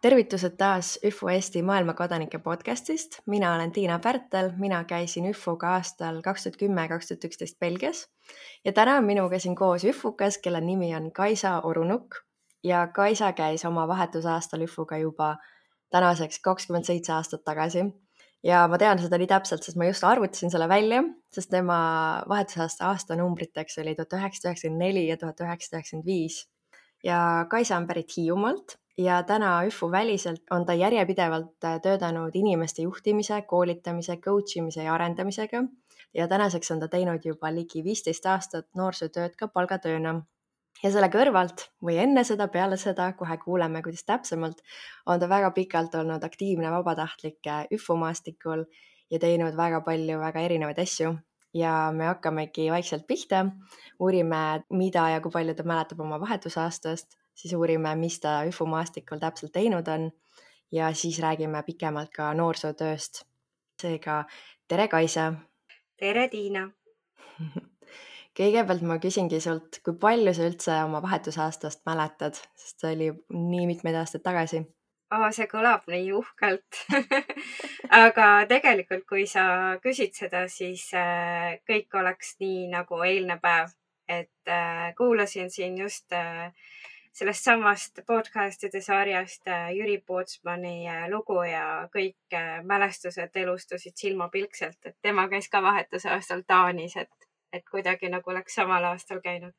Tervitused taas ÜFO Eesti maailmakodanike podcastist. Mina olen Tiina Pärtel, mina käisin ÜFO-ga aastal 2010-2011 Belgias ja täna on minuga siin koos ÜFO-kas, kelle nimi on Kaisa Orunuk ja Kaisa käis oma vahetusaastal ÜFO-ga juba tänaseks 27 aastat tagasi. Ja ma tean seda nii täpselt, sest ma just arvutasin selle välja, sest tema vahetusaasta aastanumbriteks oli 1994 ja 1995. Ja Kaisa on pärit Hiiumaalt ja täna ÜFO väliselt on ta järjepidevalt töötanud inimeste juhtimise, koolitamise, coach imise ja arendamisega. Ja tänaseks on ta teinud juba ligi 15 aastat noorsootööd ka palgatööna. Ja selle kõrvalt või enne seda, peale seda, kohe kuuleme, kuidas täpsemalt, on ta väga pikalt olnud aktiivne vabatahtlik ÜFO maastikul ja teinud väga palju väga erinevaid asju. Ja me hakkamegi vaikselt pihta, uurime, mida ja kui palju ta mäletab oma vahetusaastast, siis uurime, mis ta ÜFO maastikul täpselt teinud on ja siis räägime pikemalt ka noorsootööst. Seega, tere Kaisa! Tere Tiina! Kõigepealt ma küsingi sult, kui palju sa üldse oma vahetusaastast mäletad, sest see oli nii mitmeid aastaid tagasi. See kõlab nii uhkelt. Aga tegelikult, kui sa küsid seda, siis kõik oleks nii nagu eilne päev. Et kuulasin siin just sellest samast podcastide sarjast Jüri Pootsmani lugu ja kõik mälestused elustusid silmapilkselt, et tema käis ka vahetusaastal Taanis, et kuidagi nagu oleks samal aastal käinud.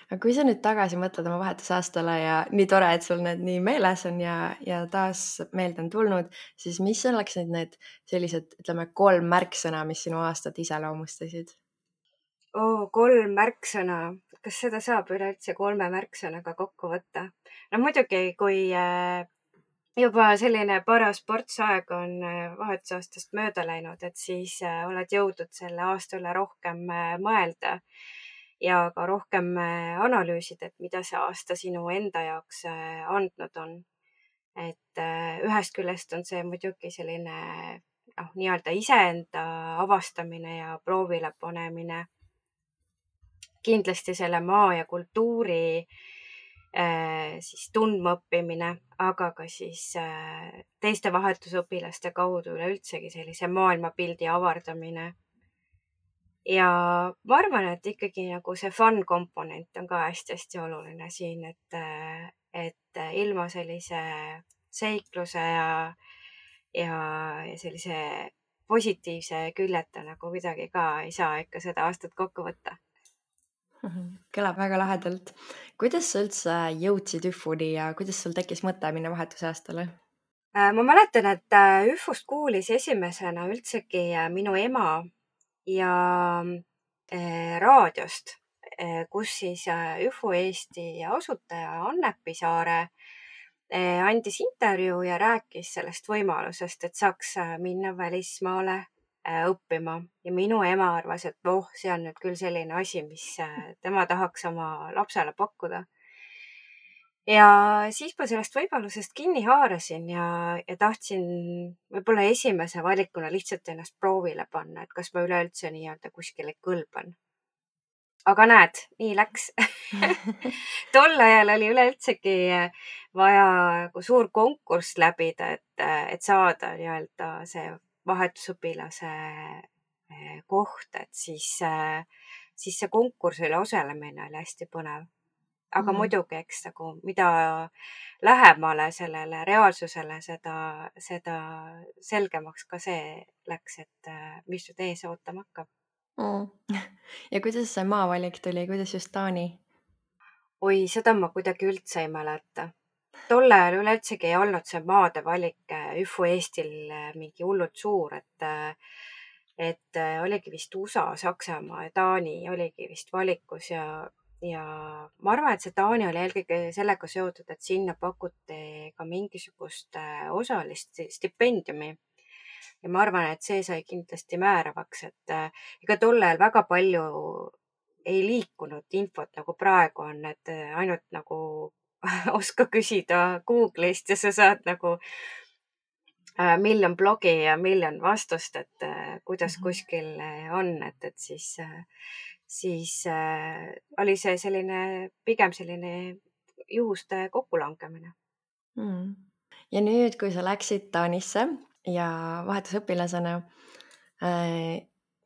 Aga kui sa nüüd tagasi mõtled oma vahetusaastale ja nii tore, et sul need nii meeles on ja taas meelde on tulnud, siis mis oleks need sellised, ütleme, 3 märksõna, mis sinu aastat iseloomustasid? 3 märksõna. Kas seda saab üleüldse 3 märksõnaga kokku võtta? No muidugi, kui juba selline paras portsaeg on vahetusaastast mööda läinud, et siis oled jõudnud selle aasta üle rohkem mõelda ja ka rohkem analüüsida, et mida see aasta sinu enda jaoks andnud on. Et ühest küljest on see muidugi selline nii-öelda iseenda avastamine ja proovile panemine. Kindlasti selle maa ja kultuuri siis tundmaõppimine, aga ka siis teiste vahetusõpilaste kaudu üleüldsegi sellise maailmapildi avardamine. Ja ma arvan, et ikkagi nagu see fun komponent on ka hästi-hästi oluline siin, et ilma sellise seikluse ja sellise positiivse küljeta nagu kuidagi ka ei saa ikka seda aastat kokku võtta. Kõlab väga lahedalt. Kuidas sa üldse jõudsid ÜFO-ni ja kuidas sul tekkis mõte minna vahetusaastale? Ma mäletan, et ÜFO-st kuulis esimesena üldsegi minu ema ja raadiost, kus siis ÜFO Eesti asutaja Anne Pisaare andis intervjuu ja rääkis sellest võimalusest, et saaks minna välismaale õppima ja minu ema arvas, et see on nüüd küll selline asi, mis tema tahaks oma lapsele pakkuda. Ja siis ma sellest võimalusest kinni haarasin ja tahtsin võib-olla esimese valikuna lihtsalt ennast proovile panna, et kas ma üleüldse nii-öelda kuskile kõlban. Aga näed, nii läks. Tol ajal oli üleüldsegi vaja suur konkurss läbida, et saada nii-öelda see vahetusõpilase koht, et siis see konkursile osalemine oli hästi põnev. Aga muidugi, eks nagu mida lähemale sellele reaalsusele, seda selgemaks ka see läks, et mis nüüd ees ootama hakkab. Ja kuidas see maavalik tuli, kuidas just Taani? Oi, seda ma kuidagi üldse ei mäleta. Tol ajal üleüldsegi ei olnud see maade valik ÜFO Eestil mingi hullult suur, et oligi vist USA, Saksamaa ja Taani oligi vist valikus ja ma arvan, et see Taani oli eelkõige sellega seotud, et sinna pakuti ka mingisugust osalist stipendiumi. Ja ma arvan, et see sai kindlasti määravaks, et ega tol ajal väga palju ei liikunud infot nagu praegu on, et ainult nagu oska küsida Google'ist ja sa saad nagu miljon blogi ja miljon vastust, et kuidas kuskil on, et siis oli see pigem selline juhuste kokkulangemine. Ja nüüd, kui sa läksid Taanisse ja vahetusõpilasena,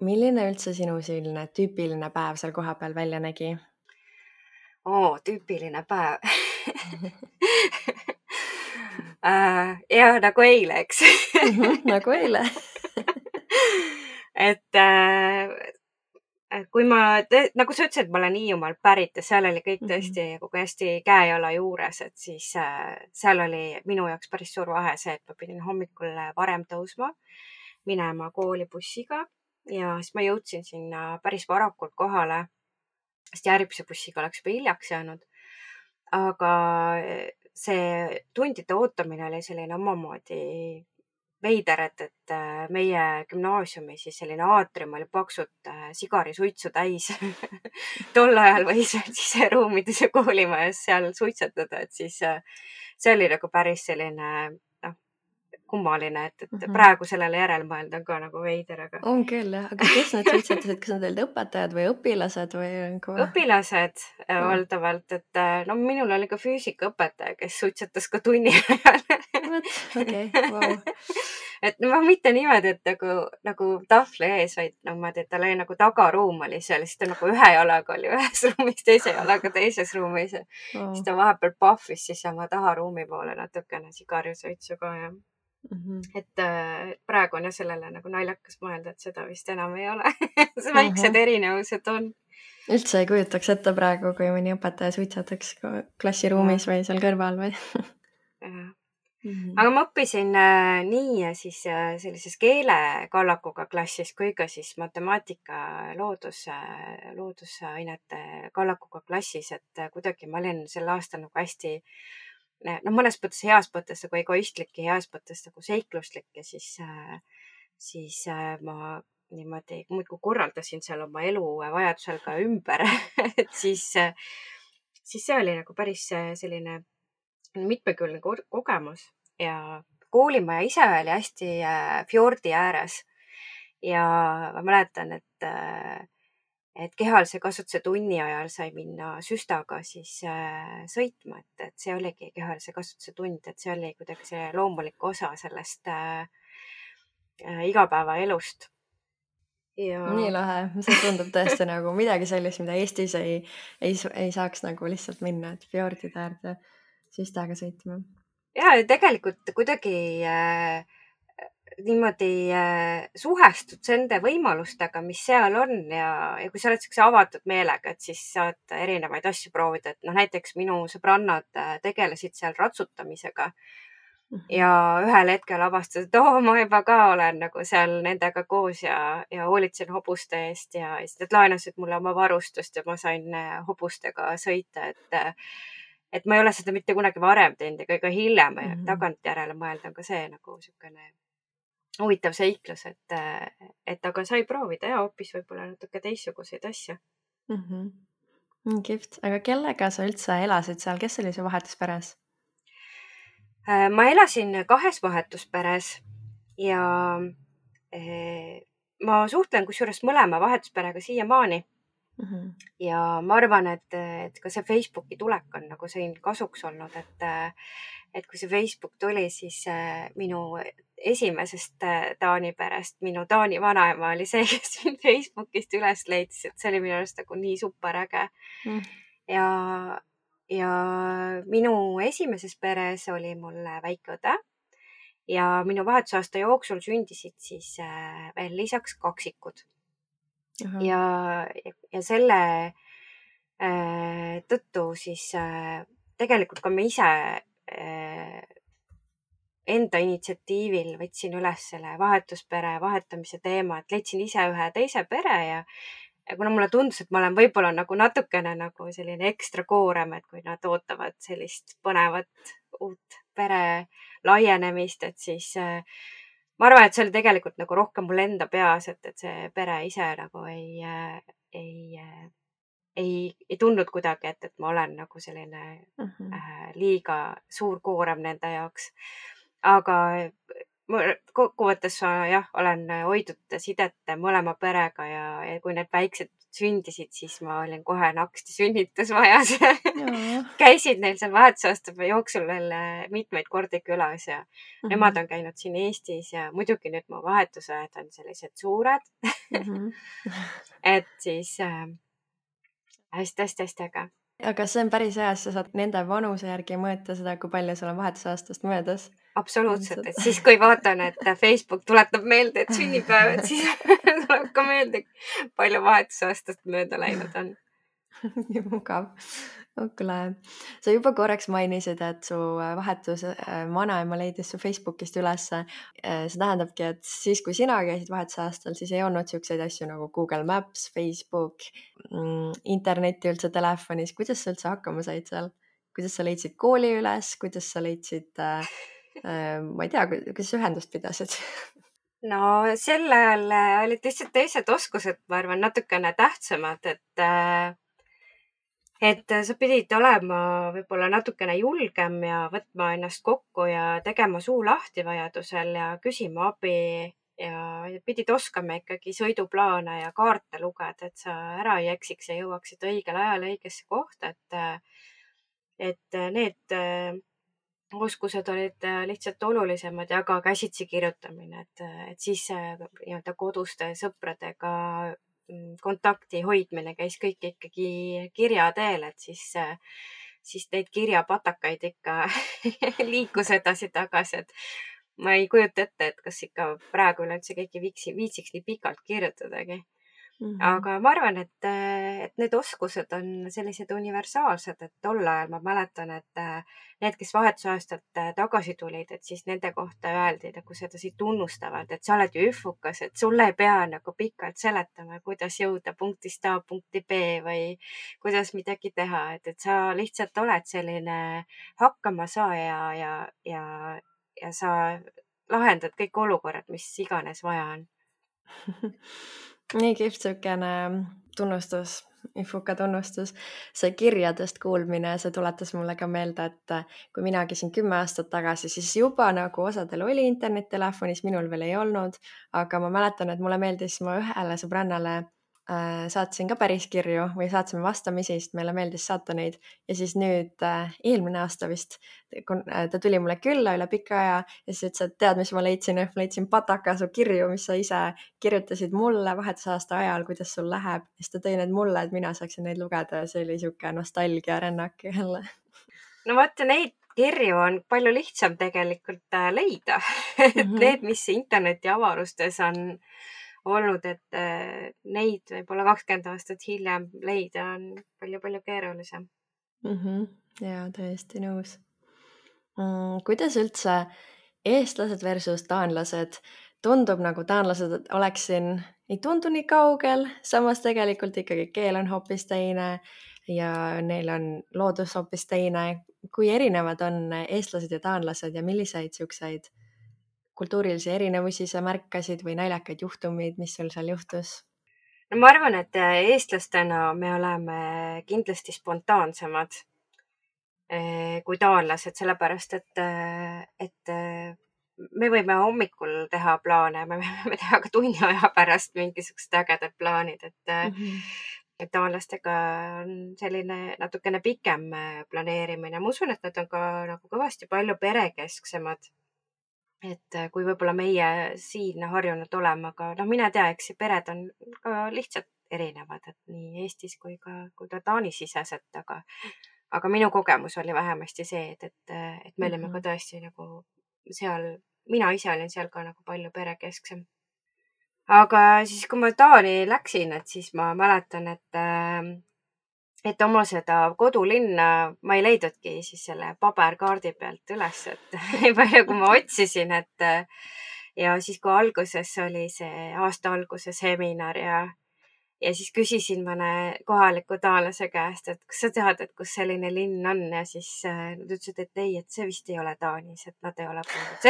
milline üldse sinu selline tüüpiline päev seal kohapeal välja nägi? Tüüpiline päev. Ja nagu eile, eks. Nagu eile. et kui nagu sa ütlesid, ma olen Hiiumaalt pärit ja seal oli kõik tõesti kogu hästi käe-jala juures, et siis seal oli minu jaoks päris suur vahe see, et ma pidin hommikul varem tõusma, minema kooli bussiga ja siis ma jõudsin sinna päris varakult kohale, sest järgmise bussiga oleks juba hiljaks jäänud. Aga see tundide ootamine oli selline omamoodi veider, et meie gümnaasiumi siis selline aatrium oli paksult sigarisuitsu täis. Tol ajal võis siseruumides ja koolimajas seal suitsetada, et siis see oli nagu päris selline kummaline, et praegu sellele järel mõelda on ka nagu veider, aga. On küll jah, aga kes need suitsetasid, kas nad olid õpetajad või õpilased või? Õpilased valdavalt, et no minul oli ka füüsikaõpetaja, kes suitsetas ka tunni ajal. Okei, vau. Et no mitte niimoodi, et nagu tahvli ees, vaid niimoodi, et tal oli nagu tagaruum oli seal, siis ta nagu ühe jalaga oli ühes ruumis, teise jalaga teises ruumis. Siis ta vahepeal pahvis siis oma taharuumi poole natukene sigarisuitsu ka ja. Et praegu on ja sellele nagu naljakas mõelda, et seda vist enam ei ole. Väiksed erinevused on. Üldse ei kujutaks ette praegu, kui mõni õpetaja suitsetaks klassiruumis või seal kõrval või? Aga ma õppisin nii siis sellises keelekallakuga klassis kui ka siis matemaatika loodusainete kallakuga klassis, et kuidagi ma olin sel aastal nagu hästi mõnes mõttes heas mõttes nagu egoistlik ja heas mõttes nagu seikluslik ja siis ma niimoodi muudkui korraldasin seal oma elu vajadusel ka ümber. Et siis see oli nagu päris selline mitmekülgne kogemus ja koolimaja ise oli hästi fjordi ääres ja ma mäletan, et kehalise kasvatuse tunni ajal sai minna süstaga siis sõitma, et see oligi kehalise kasvatuse tund, et see oli kuidagi see loomulik osa sellest igapäevaelust. Ja. Nii lahe, see tundub tõesti nagu midagi sellist, mida Eestis ei saaks nagu lihtsalt minna, et fjordide äärde süstaga sõitma. Ja tegelikult kuidagi niimoodi suhestud nende võimalustega, mis seal on ja kui sa oled sellise avatud meelega, et siis saad erinevaid asju proovida, et näiteks minu sõbrannad tegelesid seal ratsutamisega ja ühel hetkel avastasid, et ma juba ka olen nagu seal nendega koos ja hoolitsen hobuste eest ja siis nad laenasid mulle oma varustust ja ma sain hobustega sõita, et ma ei ole seda mitte kunagi varem teinud ega ka hiljem tagantjärele mõelda on ka see nagu niisugune huvitav seiklus, et aga sai proovida ja hoopis võib-olla natuke teistsuguseid asju. Kihvt, aga kellega sa üldse elasid seal, kes oli su vahetusperes? Ma elasin 2 vahetusperes ja ma suhtlen kusjuures mõlema vahetusperega siiamaani. Ja ma arvan, et ka see Facebooki tulek on nagu siin kasuks olnud, et kui see Facebook tuli, siis minu esimesest Taani perest, minu Taani vanaema oli see, kes mind Facebookist üles leidis, et see oli minu arust nagu nii super äge. Ja minu esimeses peres oli mul väike õde ja minu vahetusaasta jooksul sündisid siis veel lisaks kaksikud. Ja selle tõttu siis tegelikult ka ma ise enda initsiatiivil võtsin üles selle vahetuspere vahetamise teema, et leidsin ise ühe teise pere ja kuna mulle tundus, et ma olen võib-olla nagu natukene nagu selline ekstra koorem, et kui nad ootavad sellist põnevat uut pere laienemist, et siis ma arvan, et see oli tegelikult nagu rohkem mul enda peas, et see pere ise nagu ei tundnud kuidagi, et ma olen nagu selline liiga suur koorem nende jaoks. Aga kokkuvõttes jah, olen hoidnud sidet mõlema perega ja kui need väiksed sündisid, siis ma olin kohe naksti sünnitusmajas. Käisid neil seal vahetusaasta jooksul veel mitmeid kordi külas ja nemad on käinud siin Eestis ja muidugi nüüd mu vahetusajad on sellised suured. Et siis hästi äge. Aga see on päris hea, sa saad nende vanuse järgi mõõta seda, kui palju sul on vahetusaastast möödas. Absoluutselt, et siis kui vaatan, et Facebook tuletab meelde, et sünnipäev, et siis tuleb ka meelde, palju vahetusaastast mööda läinud on. Nii mugav. Kuule, sa juba korraks mainisid, et su vahetus vanaema leidis su Facebookist ülesse. See tähendabki, et siis kui sina käisid vahetusaastal, siis ei olnud selliseid asju nagu Google Maps, Facebook, internetti üldse telefonis. Kuidas sa üldse hakkama said seal? Kuidas sa leidsid kooli üles? Kuidas sa leidsid, ma ei tea, kuidas ühendust pidasid? No sel ajal olid lihtsalt teised oskused, ma arvan, natukene tähtsamad, et sa pidid olema võib-olla natukene julgem ja võtma ennast kokku ja tegema suu lahti vajadusel ja küsima abi ja pidid oskama ikkagi sõiduplaane ja kaarte lugeda, et sa ära ei eksiks ja jõuaksid õigel ajal õigesse kohta, et need oskused olid lihtsalt olulisemad ja ka käsitsi kirjutamine, et siis nii-öelda koduste sõpradega kontakti hoidmine käis kõik ikkagi kirja teel, et siis neid kirjapatakaid ikka liikus edasi-tagasi, et ma ei kujuta ette, et kas ikka praegu üleüldse keegi viitsiks nii pikalt kirjutadagi. Aga ma arvan, et need oskused on sellised universaalsed, et tol ajal ma mäletan, et need, kes vahetusaastalt tagasi tulid, et siis nende kohta öeldi nagu sedasi tunnustavalt, et sa oled ju üfukas, et sulle ei pea nagu pikalt seletama, kuidas jõuda punktist A punkti B või kuidas midagi teha, et sa lihtsalt oled selline hakkamasaaja ja sa lahendad kõik olukorrad, mis iganes vaja on. Nii kihvt siukene tunnustus, Ifuka tunnustus. See kirjadest kuulmine, see tuletas mulle ka meelde, et kui mina käisin 10 aastat tagasi, siis juba nagu osadel oli internettelefonis, minul veel ei olnud, aga ma mäletan, et mulle meeldis, ma ühele sõbrannale saatsin ka päris kirju või saatsime vastamisi, sest meile meeldis saata neid ja siis nüüd eelmine aasta vist ta tuli mulle külla üle pika aja ja siis ütles, et tead, mis ma leidsin? Ma leidsin pataka su kirju, mis sa ise kirjutasid mulle vahetusaasta ajal, kuidas sul läheb ja siis ta tõi need mulle, et mina saaksin neid lugeda ja see oli siuke nostalgia rännak jälle. No vaata, neid kirju on palju lihtsam tegelikult leida. Need, mis interneti avarustes on olnud, et neid võib-olla 20 aastat hiljem leida on palju-palju keerulisem. Jaa, täiesti nõus. Kuidas üldse eestlased versus taanlased? Tundub nagu taanlased oleksin, ei tundu nii kaugel, samas tegelikult ikkagi keel on hoopis teine ja neil on loodus hoopis teine. Kui erinevad on eestlased ja taanlased ja milliseid siukseid kultuurilisi erinevusi sa märkasid või naljakaid juhtumid, mis sul seal juhtus? No ma arvan, et eestlastena me oleme kindlasti spontaansemad kui taanlased, sellepärast et me võime hommikul teha plaane, me võime teha ka tunni aja pärast mingisugused ägedad plaanid, et taanlastega on selline natukene pikem planeerimine. Ma usun, et nad on ka nagu kõvasti palju perekesksemad. Et kui võib-olla meie siin harjunud olema, aga mine tea, eks pered on ka lihtsalt erinevad, et nii Eestis kui ka Taani siseselt, aga minu kogemus oli vähemasti see, et me olime ka tõesti nagu seal, mina ise olin seal ka nagu palju perekesksem. Aga siis, kui ma Taani läksin, et siis ma mäletan, et oma seda kodulinna ma ei leidudki siis selle paberkaardi pealt üles, et nii palju, kui ma otsisin, ja siis, kui alguses oli see aasta alguse seminar ja siis küsisin mõne kohaliku taanlase käest, et kas sa tead, et kus selline linn on ja siis nad ütlesid, et ei, et see vist ei ole Taanis, et nad ei ole kuulnud.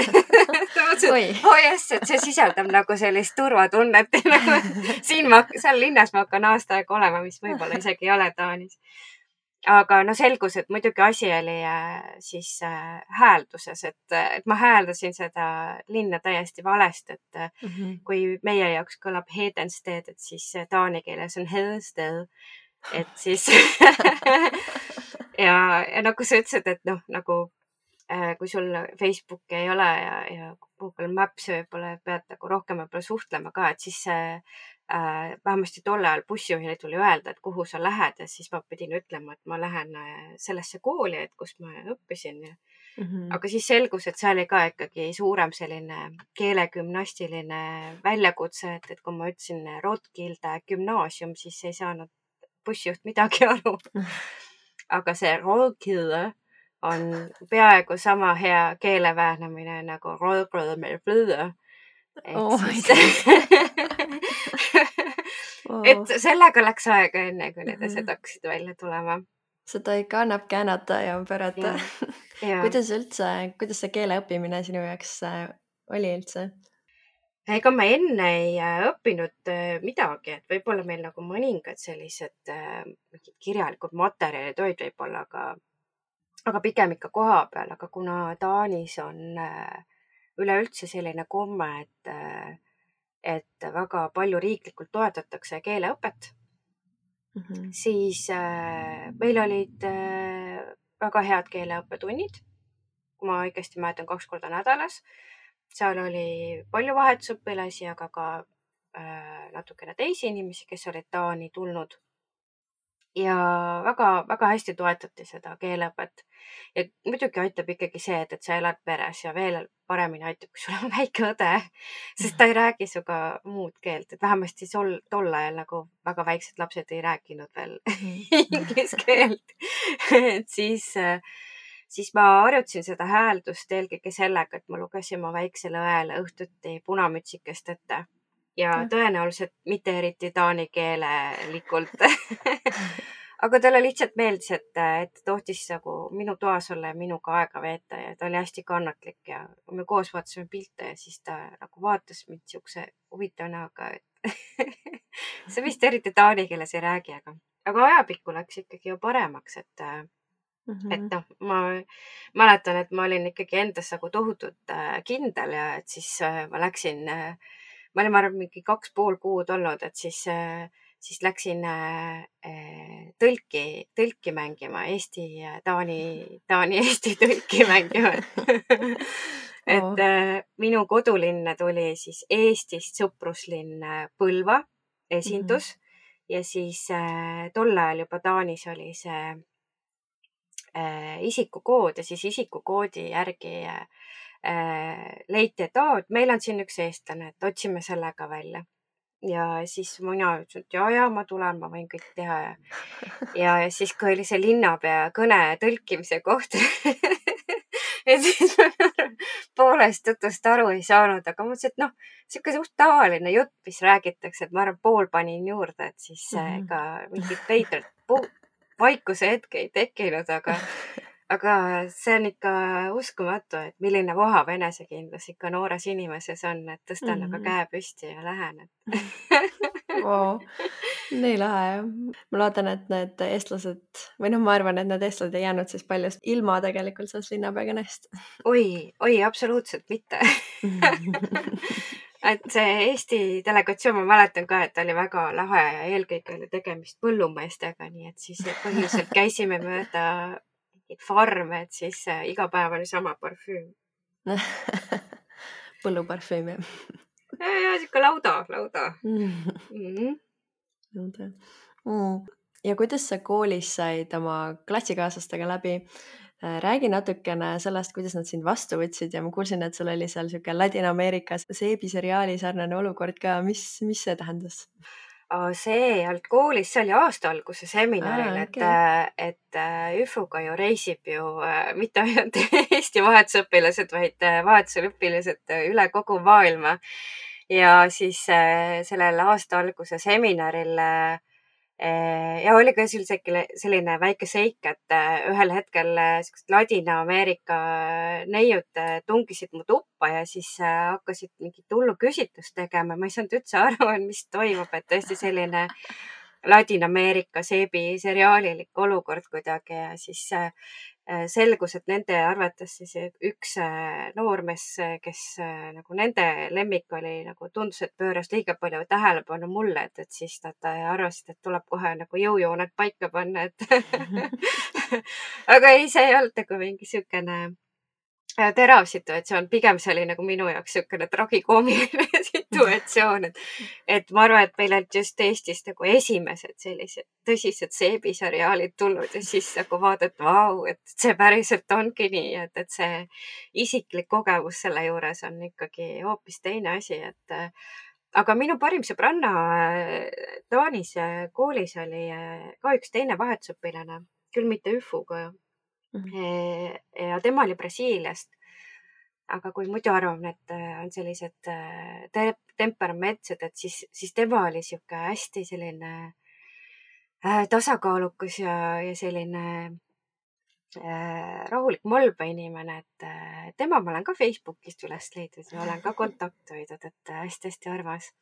Jess, et see sisaldab nagu sellist turvatunnet. Seal linnas ma hakkan aasta aega olema, mis võib-olla isegi ei ole Taanis. aga no selgus, et muidugi asi oli siis häälduses, et ma hääldasin seda linna täiesti valesti, et kui meie jaoks kõlab Hedensteed, et siis taani keeles on Hedensted, et siis ja nagu sa ütlesid, et noh, nagu kui sul Facebooki ei ole ja Google Maps võib-olla pead nagu rohkem võib-olla suhtlema ka, et siis vähemasti tol ajal bussijuhile tuli öelda, et kuhu sa lähed ja siis ma pidin ütlema, et ma lähen sellesse kooli, et kus ma õppisin. Aga siis selgus, et see oli ka ikkagi suurem selline keelegümnastiline väljakutse, et kui ma ütlesin Rotkilde gümnaasium, siis ei saanud bussijuht midagi aru. Aga see Rotkilde on peaaegu sama hea keeleväänamine nagu Rotkilde. Et sellega läks aega enne, kui need asjad hakkasid välja tulema. Seda ikka annab käänata ja pöörata. Kuidas see keele õppimine sinu jaoks oli üldse? Ega ma enne ei õppinud midagi, et võib-olla meil nagu mõningad sellised kirjalikud materjalid olid võib-olla, aga pigem ikka koha peal, aga kuna Taanis on üleüldse selline komme, et väga palju riiklikult toetatakse keeleõpet, siis meil olid väga head keeleõppetunnid, kui ma õigesti mäletan, 2 korda nädalas. Seal oli palju vahetusõpilasi, aga ka natukene teisi inimesi, kes olid Taani tulnud. Ja väga hästi toetati seda keeleõpet. Ja muidugi aitab ikkagi see, et sa elad peres ja veel paremini aitab, kui sul on väike õde, sest ta ei räägi sinuga muud keelt, et vähemasti tol ajal nagu väga väiksed lapsed ei rääkinud veel inglise keelt. Et siis ma harjutasin seda hääldust eelkõige sellega, et ma lugesin oma väiksele õele õhtuti Punamütsikest ette ja tõenäoliselt mitte eriti taani keelelikult. Aga talle lihtsalt meeldis, et tohtis nagu minu toas olla ja minuga aega veeta ja ta oli hästi kannatlik ja me koos vaatasime pilte ja siis ta nagu vaatas mind siukse huvitava näoga, et see vist eriti taani keeles ei räägi, aga ajapikku läks ikkagi ju paremaks, et noh, ma mäletan, et ma olin ikkagi endas nagu tohutult kindel ja et siis ma läksin, ma olin arvan mingi 2,5 kuud olnud, et siis läksin tõlki mängima, Taani Eesti tõlki mängima. Et minu kodulinn tuli siis Eestist sõpruslinn Põlva esindus ja siis tol ajal juba Taanis oli see isikukood ja siis isikukoodi järgi leiti, et meil on siin üks eestlane, et otsime selle ka välja. Ja siis mina ütlesin, et ja, ma tulen, ma võin kõik teha. Ja siis, kui oli see linnapea kõne tõlkimise koht, et siis ma poolest jutust aru ei saanud, aga ma mõtlesin, et noh, siuke suht tavaline jutt, mis räägitakse, et ma arvan, pool panin juurde, et siis ega mingit veidrat vaikuse hetke ei tekkinud, aga see on ikka uskumatu, et milline vohav enesekindlus ikka noores inimeses on, et tõstan aga käe püsti ja lähen. Nii lahe jah. Ma loodan, et need eestlased või noh, ma arvan, et need eestlased ei jäänud siis paljust ilma tegelikult sellest linnapea kõnest. Oi, absoluutselt mitte. Et see Eesti delegatsioon, ma mäletan ka, et oli väga lahe ja eelkõige oli tegemist põllumeestega, nii et siis põhiliselt käisime mööda farme, et siis iga päev oli sama parfüüm. Põlluparfüüm jah? Ja siuke lauda. Ja kuidas sa koolis said oma klassikaaslastega läbi? Räägi natukene sellest, kuidas nad sind vastu võtsid ja ma kuulsin, et sul oli seal siuke Ladina-Ameerikas seebiseriaali sarnane olukord ka. Mis see tähendas? See ei olnud koolis, see oli aasta alguse seminaril, et ÜFO-ga ju reisib ju mitte ainult Eesti vahetusõpilased, vaid vahetusel õpilased üle kogu maailma. Ja siis sellel aasta alguse seminaril ja oli ka selline väike seik, et ühel hetkel sellised Ladina-Ameerika neiud tungisid mu tuppa ja siis hakkasid mingit hullu küsitlust tegema. Ma ei saanud üldse aru, mis toimub, et tõesti selline Ladina-Ameerika seebiseriaalilik olukord kuidagi ja siis selgus, et nende arvates siis üks noormees, kes nagu nende lemmik oli, nagu tundus, et pööras liiga palju tähelepanu mulle, et siis nad arvasid, et tuleb kohe nagu jõujooned paika panna, et aga ei, see ei olnud nagu mingi siukene terav situatsioon, pigem see oli nagu minu jaoks niisugune tragikoomiline situatsioon, et ma arvan, et meil olid just Eestis nagu esimesed sellised tõsised seebiseriaalid tulnud ja siis nagu vaadata, vau, et see päriselt ongi nii, et see isiklik kogemus selle juures on ikkagi hoopis teine asi, et aga minu parim sõbranna Taanis koolis oli ka üks teine vahetusõpilane, küll mitte ÜFU-ga ja tema oli Brasiiliast. Aga kui muidu arvame, et on sellised temperamentsed, et siis tema oli sihuke hästi selline tasakaalukas ja selline rahulik Molba inimene, et tema ma olen ka Facebookist üles leidnud ja olen ka kontakti hoidnud, et hästi-hästi armas.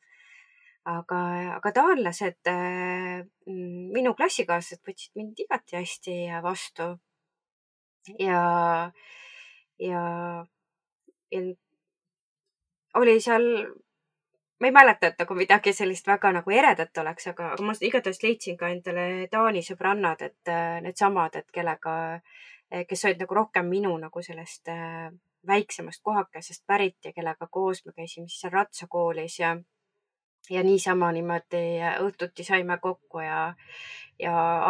Aga taanlased, minu klassikaaslased võtsid mind igati hästi vastu ja oli seal, ma ei mäleta, et nagu midagi sellist väga nagu eredat oleks, aga ma igatahes leidsin ka endale Taani sõbrannad, et needsamad, et kellega, kes olid nagu rohkem minu nagu sellest väiksemast kohakesest pärit ja kellega koos me käisime siis seal ratsakoolis ja niisama niimoodi õhtuti saime kokku ja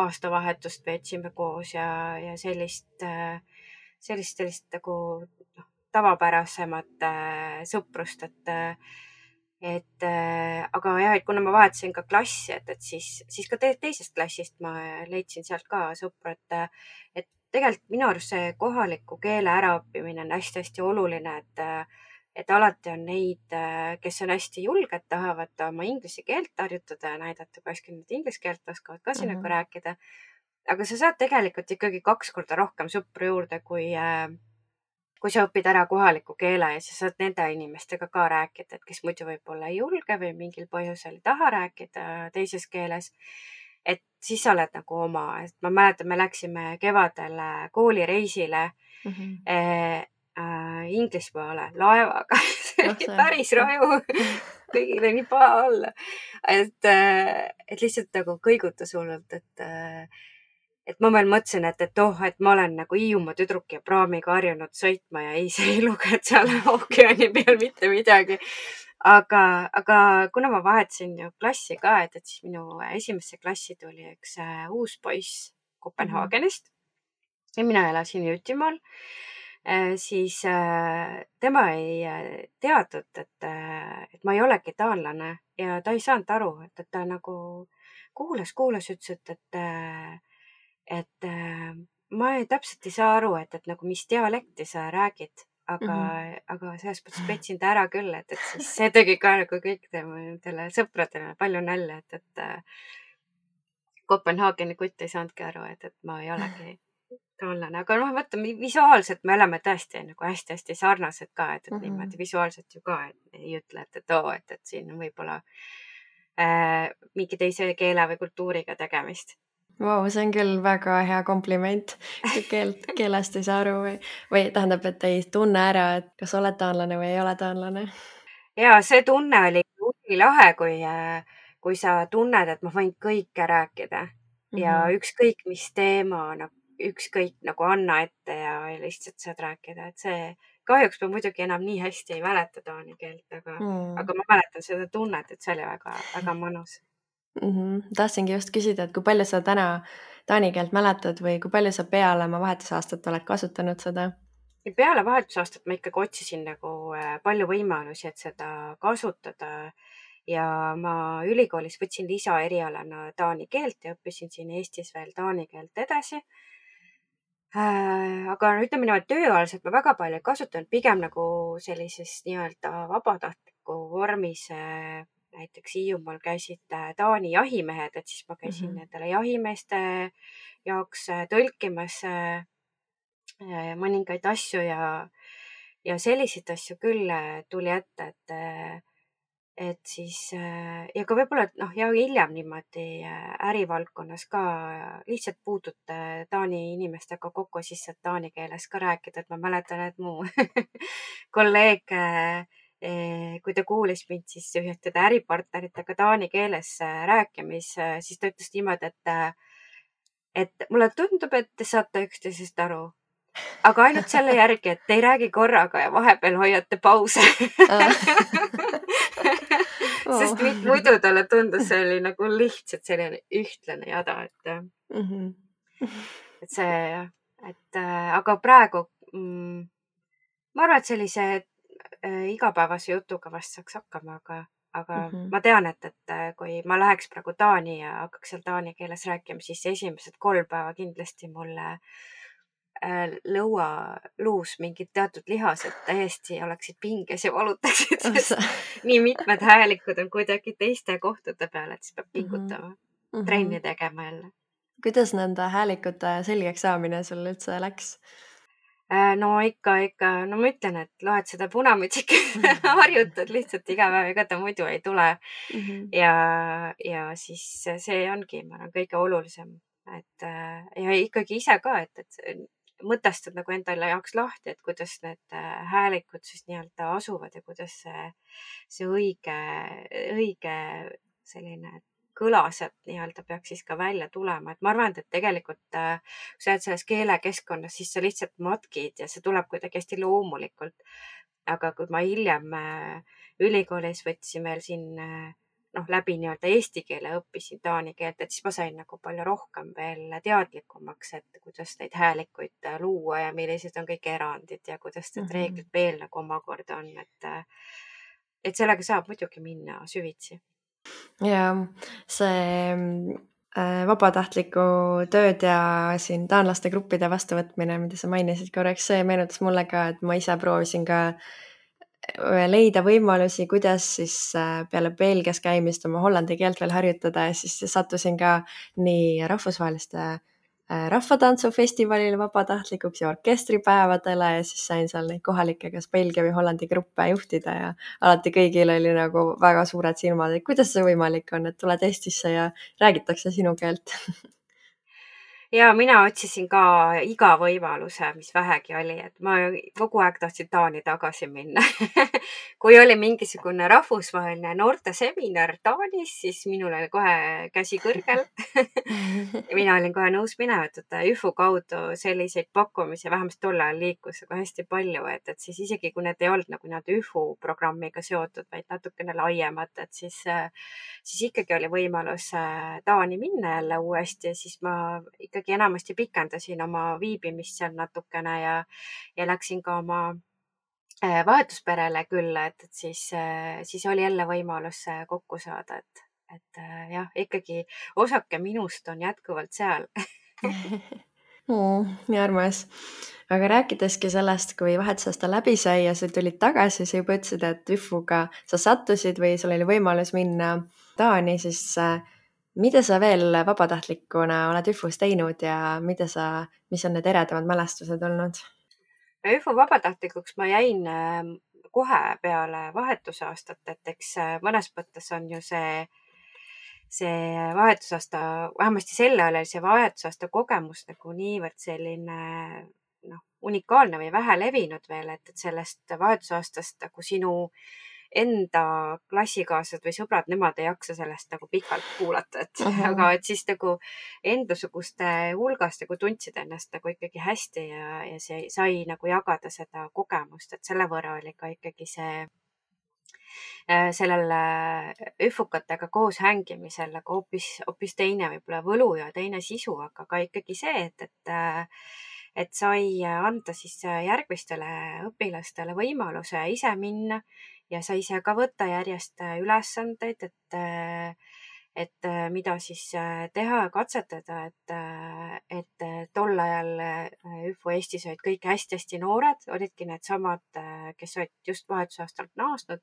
aastavahetust veetsime koos ja sellist nagu tavapärasemat sõprust, aga jah, et kuna ma vahetasin ka klassi, et siis ka teisest klassist ma leidsin sealt ka sõpru, et tegelikult minu arust see kohaliku keele äraõppimine on hästi-hästi oluline, et alati on neid, kes on hästi julged, tahavad oma inglise keelt harjutada ja näidata, kui hästi nad inglise keelt oskavad ka siin nagu rääkida. Aga sa saad tegelikult ikkagi 2 korda rohkem sõpru juurde, kui sa õpid ära kohaliku keele ja sa saad nende inimestega ka rääkida, et kes muidu võib-olla ei julge või mingil põhjusel ei taha rääkida teises keeles. Et siis sa oled nagu oma, et ma mäletan, me läksime kevadel koolireisile Inglismaale laevaga. See oli päris raju. Kõigile nii paha olla. Et lihtsalt nagu kõigutas hullult, et ma veel mõtlesin, et ma olen nagu Hiiumaa tüdruk ja praamiga harjunud sõitma ja ei, see ei lugenud seal ookeani peal mitte midagi. Aga kuna ma vahetasin ju klassi ka, et siis minu esimesse klassi tuli üks uus poiss Kopenhaagenist ja mina elasin Jõtimaal, siis tema ei teadnud, et ma ei olegi taanlane ja ta ei saanud aru, et ta nagu kuulas, ütles, et ma täpselt ei saa aru, et nagu mis dialekti sa räägid, aga selles mõttes petsin ta ära küll, et siis see tegi ka nagu kõikidele sõpradele palju nalja, et Kopenhaageni kutt ei saanudki aru, et ma ei olegi taanlane, aga noh, vaata visuaalselt me oleme tõesti nagu hästi-hästi sarnased ka, et niimoodi visuaalselt ju ka ei ütle, et siin on võib-olla mingi teise keele või kultuuriga tegemist. Vau, see on küll väga hea kompliment, kui keelest ei saa aru või tähendab, et ei tunne ära, et kas oled taanlane või ei ole taanlane. Ja see tunne oli lahe, kui sa tunned, et ma võin kõike rääkida ja ükskõik mis teema, ükskõik nagu anna ette ja lihtsalt saad rääkida, et see kahjuks ma muidugi enam nii hästi ei mäleta taani keelt, aga ma mäletan seda tunnet, et see oli väga, väga mõnus. Tahtsingi just küsida, et kui palju sa täna taani keelt mäletad või kui palju sa peale oma vahetusaastat oled kasutanud seda? Peale vahetusaastat ma ikkagi otsisin nagu palju võimalusi, et seda kasutada ja ma ülikoolis võtsin lisaerialana taani keelt ja õppisin siin Eestis veel taani keelt edasi. Aga ütleme niimoodi, tööalaselt ma väga palju ei kasutanud, pigem nagu sellises nii-öelda vabatahtliku vormis. Näiteks Hiiumaal käisid Taani jahimehed, et siis ma käisin nendele jahimeeste jaoks tõlkimas mõningaid asju ja selliseid asju küll tuli ette, et siis ja ka võib-olla, ja hiljem niimoodi ärivaldkonnas ka lihtsalt puutute Taani inimestega kokku, siis saad taani keeles ka rääkida, et ma mäletan, et mu kolleeg, kui ta kuulis mind siis ühtede äripartneritega taani keeles rääkimis, siis ta ütles niimoodi, et mulle tundub, et te saate üksteisest aru, aga ainult selle järgi, et te ei räägi korraga ja vahepeal hoiate pause. Sest muidu talle tundus see oli nagu lihtsalt selline ühtlane jada, et see jah, aga praegu ma arvan, et sellise igapäevase jutuga vast saaks hakkama, aga ma tean, et kui ma läheks praegu Taani ja hakkaks seal taani keeles rääkima, siis esimesed 3 päeva kindlasti mulle lõualuus mingid teatud lihased täiesti oleksid pinges ja valutaksid, sest nii mitmed häälikud on kuidagi teiste kohtade peal, et siis peab pingutama, trenni tegema jälle. Kuidas nende häälikute selgeks saamine sul üldse läks? No ikka, no ma ütlen, et loed seda Punamütsikut, harjutad lihtsalt iga päev, ega ta muidu ei tule. Ja siis see ongi, ma arvan, kõige olulisem, et ja ikkagi ise ka, et mõtestad nagu endale jaoks lahti, et kuidas need häälikud siis nii-öelda asuvad ja kuidas see õige selline kõla sealt nii-öelda peaks siis ka välja tulema. Et ma arvan, et tegelikult kui sa oled selles keelekeskkonnas, siis sa lihtsalt matkid ja see tuleb kuidagi hästi loomulikult. Aga kui ma hiljem ülikoolis võtsin veel siin läbi nii-öelda eesti keele õppisin taani keelt, et siis ma sain nagu palju rohkem veel teadlikumaks, et kuidas neid häälikuid luua ja millised on kõik erandid ja kuidas need reeglid veel nagu omakorda on. Et sellega saab muidugi minna süvitsi. Ja see vabatahtliku tööd ja siin taanlaste gruppide vastuvõtmine, mida sa mainisid korraks, see meenutas mulle ka, et ma ise proovisin ka leida võimalusi, kuidas siis peale Belgias käimist oma hollandi keelt veel harjutada ja siis sattusin ka nii rahvusvaheliste rahvatantsufestivalile vabatahtlikuks ja orkestripäevadele ja siis sain seal neid kohalikke kas Belgia või Hollandi gruppe juhtida ja alati kõigil oli nagu väga suured silmad, et kuidas see võimalik on, et tuled Eestisse ja räägitakse sinu keelt. Ja mina otsisin ka iga võimaluse, mis vähegi oli, et ma kogu aeg tahtsin Taani tagasi minna. Kui oli mingisugune rahvusvaheline noorteseminar Taanis, siis minul oli kohe käsi kõrgel. Mina olin kohe nõus minema, et ÜFO kaudu selliseid pakkumisi vähemasti tol ajal liikus aga hästi palju, et siis isegi kui need ei olnud nagu nad ÜFO programmiga seotud, vaid natukene laiemad, et siis ikkagi oli võimalus Taani minna jälle uuesti ja siis ma ikkagi enamasti pikendasin oma viibimist seal natukene ja läksin ka oma vahetusperele külla, et siis oli jälle võimalus kokku saada, et jah, ikkagi osake minust on jätkuvalt seal. Nii armas. Aga rääkideski sellest, kui vahetusaasta läbi sai ja sa tulid tagasi, sa juba ütlesid, et ÜFO-ga sa sattusid või sul oli võimalus minna Taani, siis mida sa veel vabatahtlikuna oled ÜFO-s teinud ja mis on need eredamad mälestused olnud? ÜFO vabatahtlikuks ma jäin kohe peale vahetusaastat, et eks mõnes mõttes on ju see vahetusaasta, vähemasti sel ajal oli see vahetusaasta kogemus nagu niivõrd selline unikaalne või vähe levinud veel, et sellest vahetusaastast nagu sinu enda klassikaaslased või sõbrad, nemad ei jaksa sellest nagu pikalt kuulata, aga et siis nagu endasuguste hulgast nagu tundsid ennast nagu ikkagi hästi ja see sai nagu jagada seda kogemust, et selle võrra oli ka ikkagi sellel üfukatega koos hängimisel nagu hoopis teine võib-olla võlu ja teine sisu, aga ka ikkagi see, et sai anda siis järgmistele õpilastele võimaluse ise minna ja sai ise ka võtta järjest ülesandeid, et mida siis teha ja katsetada, et tol ajal ÜFO Eestis olid kõik hästi-hästi noored, olidki needsamad, kes olid just vahetusaastalt naasnud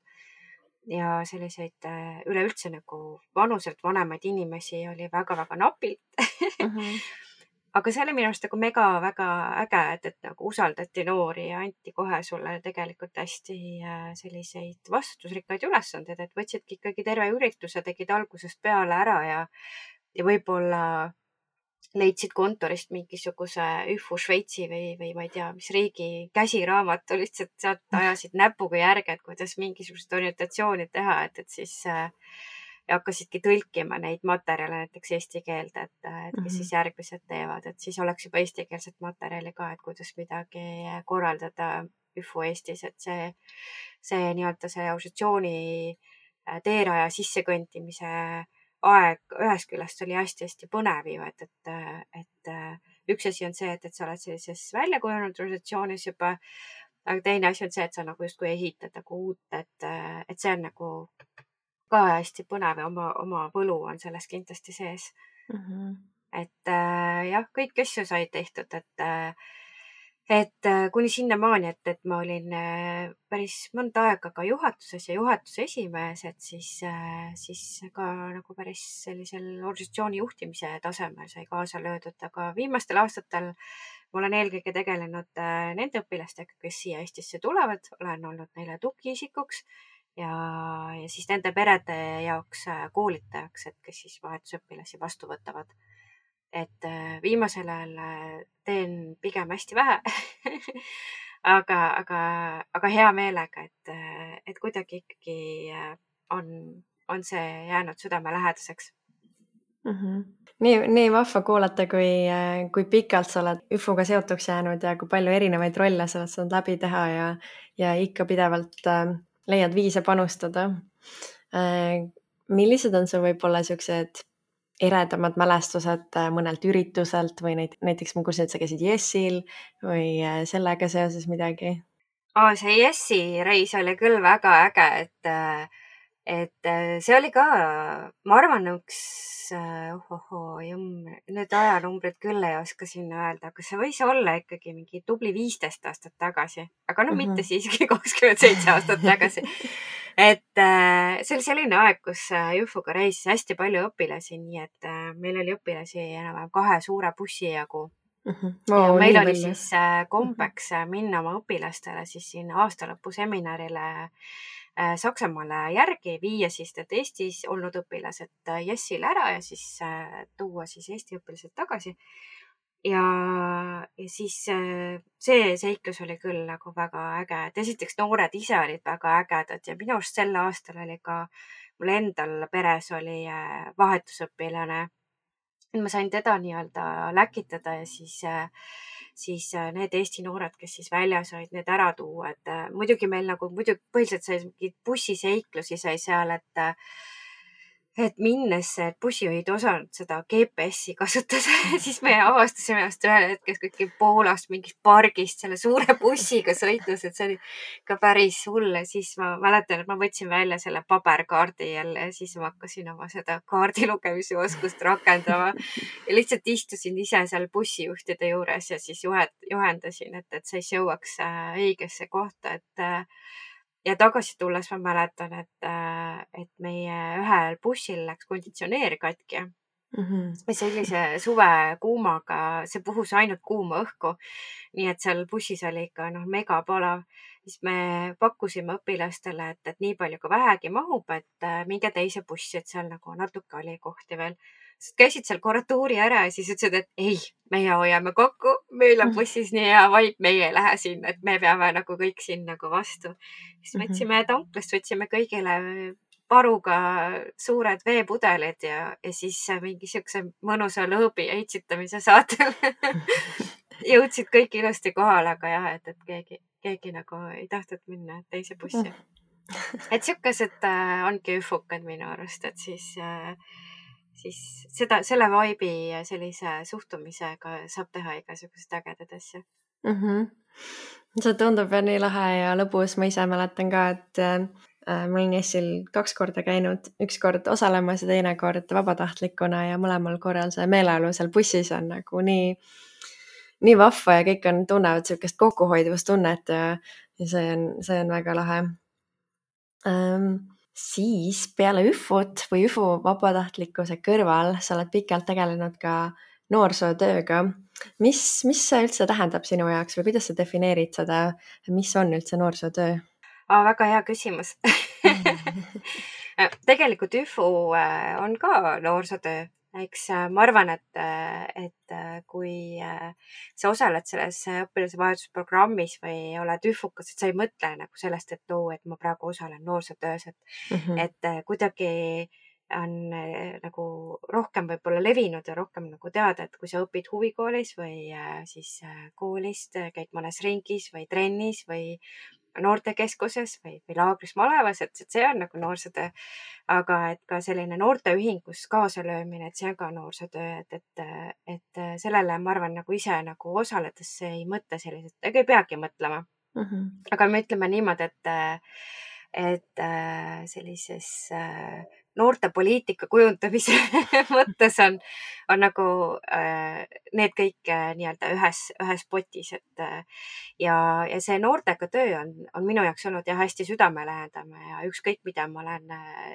ja selliseid üleüldse nagu vanuselt vanemaid inimesi oli väga-väga napilt. aga see oli minu arust nagu mega väga äge, et nagu usaldati noori ja anti kohe sulle tegelikult hästi selliseid vastutusrikkaid ülesandeid, et võtsidki ikkagi terve ürituse, tegid algusest peale ära ja võib-olla leidsid kontorist mingisuguse ÜFO Šveitsi või ma ei tea, mis riigi käsiraamatu, lihtsalt sealt ajasid näpuga järge, et kuidas mingisugust orientatsiooni teha, et siis ja hakkasidki tõlkima neid materjale näiteks eesti keelde, et kes siis järgmised teevad, et siis oleks juba eestikeelset materjali ka, et kuidas midagi korraldada ÜFO Eestis, et see nii-öelda see organisatsiooni teeraja sissekõndimise aeg ühest küljest oli hästi-hästi põnev ju, et üks asi on see, et sa oled sellises väljakujunenud organisatsioonis juba, aga teine asi on see, et sa nagu justkui ehitad nagu uut, et see on nagu ka hästi põnev ja oma võlu on selles kindlasti sees. Et jah, kõik asju said tehtud, et kuni sinnamaani, et ma olin päris mõnda aega ka juhatuses ja juhatuse esimees, et siis ka nagu päris sellisel organisatsiooni juhtimise tasemel sai kaasa löödud, aga viimastel aastatel ma olen eelkõige tegelenud nende õpilastega, kes siia Eestisse tulevad, olen olnud neile tugiisikuks ja siis nende perede jaoks koolitajaks, et kes siis vahetusõpilasi vastu võtavad. Et viimasel ajal teen pigem hästi vähe aga hea meelega, et kuidagi ikkagi on see jäänud südamelähedaseks. Nii vahva kuulata, kui pikalt sa oled ÜFO-ga seotuks jäänud ja kui palju erinevaid rolle sa oled saanud läbi teha ja ikka pidevalt leiad viise panustada. Millised on su võib-olla siuksed eredamad mälestused mõnelt ürituselt või näiteks ma kuulsin, et sa käisid Jessil või sellega seoses midagi? See Jessi reis oli küll väga äge, et see oli ka, ma arvan, üks, nüüd ajanumbrid küll ei oska sinna öelda, aga see võis olla ikkagi mingi tubli 15 aastat tagasi, aga mitte siiski 27 aastat tagasi. Et see oli selline aeg, kus ÜFO-ga reisis hästi palju õpilasi, nii et meil oli õpilasi enam-vähem 2 suure bussi jagu. Ja meil oli siis kombeks minna oma õpilastele siis sinna aastalõpuseminarile Saksamaale järgi, viia siis need Eestis olnud õpilased Jessile ära ja siis tuua siis Eesti õpilased tagasi. Ja siis see seiklus oli küll nagu väga äge, et esiteks noored ise olid väga ägedad ja minu arust sel aastal oli ka mul endal peres oli vahetusõpilane. Ma sain teda nii-öelda läkitada ja siis need Eesti noored, kes siis väljas olid, need ära tuua, et muidugi meil nagu põhiliselt sai mingeid bussiseiklusi sai seal, et minnes bussijuhid osanud seda GPS-i kasutada, siis me avastasime ennast ühel hetkel kõik Poolast mingist pargist selle suure bussiga sõitmas, et see oli ka päris hull. Ja siis ma mäletan, et ma võtsin välja selle paberkaardi jälle ja siis ma hakkasin oma seda kaardi lugemise oskust rakendama ja lihtsalt istusin ise seal bussijuhtide juures ja siis juhendasin, et siis jõuaks õigesse kohta, ja tagasi tulles ma mäletan, et meie ühel bussil läks konditsioneer katki. Sellise suve kuumaga, see puhus ainult kuuma õhku. Nii et seal bussis oli ikka mega palav. Siis me pakkusime õpilastele, et nii palju kui vähegi mahub, et minge teise bussi, et seal nagu natuke oli kohti veel. Käisid seal korra tuuri ära ja siis ütlesid, et ei, meie hoiame kokku, meil on bussis nii hea vaip, meie ei lähe sinna, et me peame nagu kõik siin nagu vastu. Siis võtsime tanklast, võtsime kõigile paruga suured veepudelid ja siis mingi siukse mõnusa lõõbi ja itsitamise saatel jõudsid kõik ilusti kohale, aga jah, et keegi nagu ei tahtnud minna teise bussi. Et siukesed ongi ÜFO-kad minu arust, et siis selle vaibi ja sellise suhtumisega saab teha igasuguseid ägedad asju. See tundub nii lahe ja lõbus. Ma ise mäletan ka, et ma olin Jessil 2 korda käinud, 1 kord osalemas ja teine kord vabatahtlikuna ja mõlemal korral see meeleolu seal bussis on nagu nii vahva ja kõik tunnevad sellist kokkuhoidvustunnet ja see on väga lahe. Siis peale ÜFO-t või ÜFO vabatahtlikkuse kõrval sa oled pikalt tegelenud ka noorsootööga. Mis see üldse tähendab sinu jaoks või kuidas sa defineerid seda, mis on üldse noorsootöö? Väga hea küsimus. Tegelikult ÜFU on ka noorsootöö. Eks ma arvan, et kui sa osaled selles õpilase vahetusprogrammis või oled ÜFUkas, et sa ei mõtle nagu sellest, et et ma praegu osalen noorsootöös, et kuidagi on nagu rohkem võib-olla levinud ja rohkem nagu teada, et kui sa õpid huvikoolis või siis koolist, käid mõnes ringis või trennis või noortekeskuses või laagris malevas, et see on nagu noorsootöö. Aga et ka selline noorteühingus kaasalöömine, et see on ka noorsootöö, et sellele ma arvan nagu ise nagu osaledes ei mõtle selliselt, ega ei peagi mõtlema. Aga me ütleme niimoodi, et sellises noortepoliitika kujundamise mõttes on nagu need kõik nii-öelda ühes potis, et ja see noortega töö on minu jaoks olnud jah hästi südamelähedane ja ükskõik, mida ma olen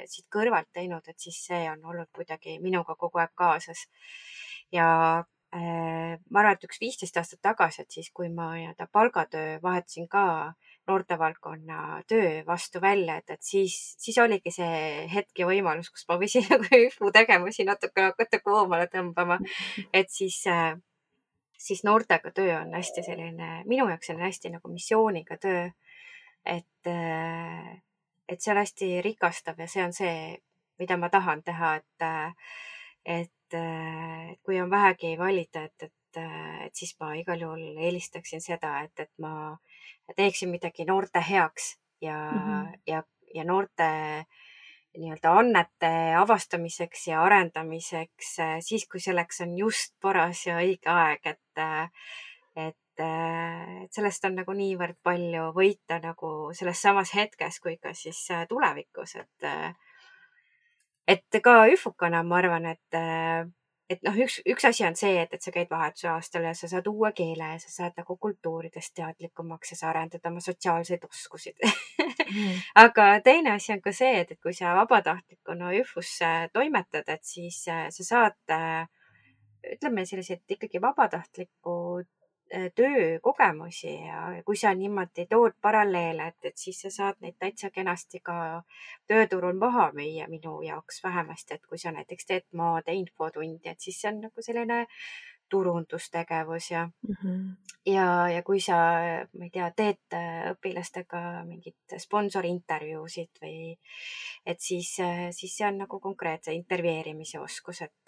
siit kõrvalt teinud, et siis see on olnud kuidagi minuga kogu aeg kaasas. Ja ma arvan, et 15 aastat tagasi, et siis, kui ma nii-öelda palgatöö vahetasin ka noortevaldkonna töö vastu välja, et siis oligi see hetk ja võimalus, kus ma võisin nagu ÜFU tegevusi natuke hakata koomale tõmbama. Et siis noortega töö on hästi selline, minu jaoks on hästi nagu missiooniga töö. Et see on hästi rikastav ja see on see, mida ma tahan teha, et kui on vähegi valida, et siis ma igal juhul eelistaksin seda, et ma teeksin midagi noorte heaks ja noorte nii-öelda annete avastamiseks ja arendamiseks siis, kui selleks on just paras ja õige aeg, et sellest on nagu niivõrd palju võita nagu selles samas hetkes kui ka siis tulevikus, et ka ÜFUkana ma arvan, et noh, üks asi on see, et sa käid vahetusaastal ja sa saad uue keele ja sa saad nagu kultuuridest teadlikumaks ja sa arendad oma sotsiaalseid oskusid. Aga teine asi on ka see, et kui sa vabatahtlikuna ÜFUs toimetad, et siis sa saad, ütleme selliseid ikkagi vabatahtliku töökogemusi ja kui sa niimoodi tood paralleele, et siis sa saad neid täitsa kenasti ka tööturul maha müüa minu jaoks vähemasti, et kui sa näiteks teed maade infotundi, et siis see on nagu selline turundustegevus ja kui sa, ma ei tea, teed õpilastega mingit sponsorintervjuusid või et siis see on nagu konkreetse intervjueerimise oskus, et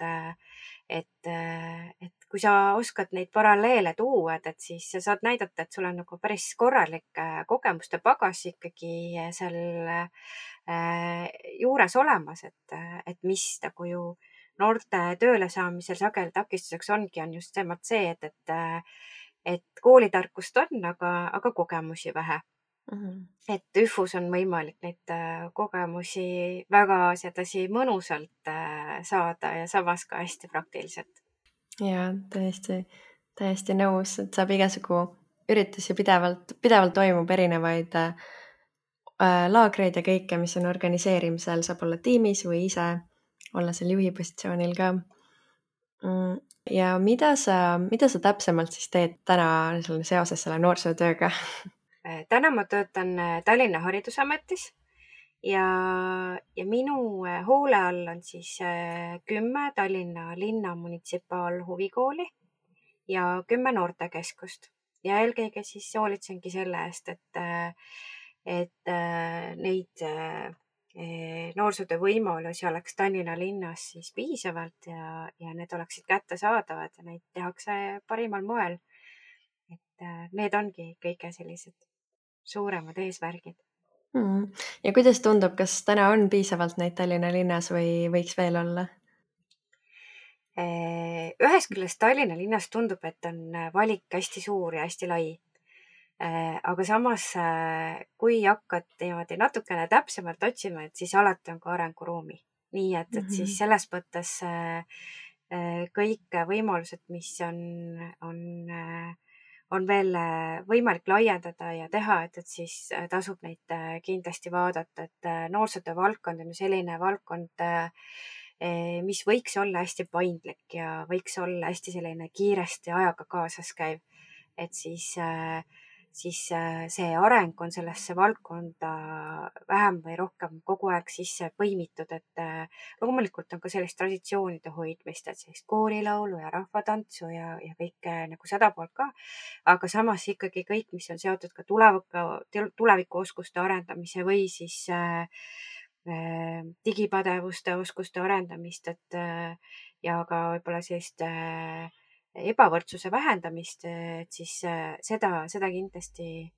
kui sa oskad neid paralleele tuua, et siis sa saad näidata, et sul on nagu päris korralik kogemuste pagas ikkagi seal juures olemas, et mis nagu ju noorte tööle saamisel sageli takistuseks on just see, et koolitarkust on, aga kogemusi vähe. Et ÜFUs on võimalik neid kogemusi väga sedasi mõnusalt saada ja samas ka hästi praktiliselt. Ja täiesti nõus, et saab igasugu üritusi pidevalt toimub erinevaid laagreid ja kõike, mis on organiseerimisel, saab olla tiimis või ise olla seal juhi positsioonil ka. Ja mida sa täpsemalt siis teed täna seoses selle noorsootööga? Täna ma töötan Tallinna Haridusametis ja minu hoole all on siis 10 Tallinna linna munitsipaalhuvikooli ja 10 noortekeskust ja eelkõige siis hoolitsengi selle eest, et neid noorsootöö võimalusi oleks Tallinna linnas siis piisavalt ja need oleksid kättesaadavad ja neid tehakse parimal moel. Et need ongi kõige sellised suuremad eesmärgid. Ja kuidas tundub, kas täna on piisavalt neid Tallinna linnas või võiks veel olla? Ühest küljest Tallinna linnas tundub, et on valik hästi suur ja hästi lai. Aga samas, kui hakkad niimoodi natukene täpsemalt otsima, et siis alati on ka arenguruumi. Nii et siis selles mõttes kõik võimalused, mis on veel võimalik laiendada ja teha, et siis tasub neid kindlasti vaadata, et noorsootöö valdkond on ju selline valdkond, mis võiks olla hästi paindlik ja võiks olla hästi selline kiiresti ajaga kaasas käiv. Et siis see areng on sellesse valdkonda vähem või rohkem kogu aeg sisse põimitud, et loomulikult on ka sellist traditsioonide hoidmist, et sellist koorilaulu ja rahvatantsu ja kõike nagu seda poolt ka. Aga samas ikkagi kõik, mis on seotud ka tulevikuoskuste arendamise või siis digipädevuste oskuste arendamist, et ja ka võib-olla sellist ebavõrdsuse vähendamist, et siis seda kindlasti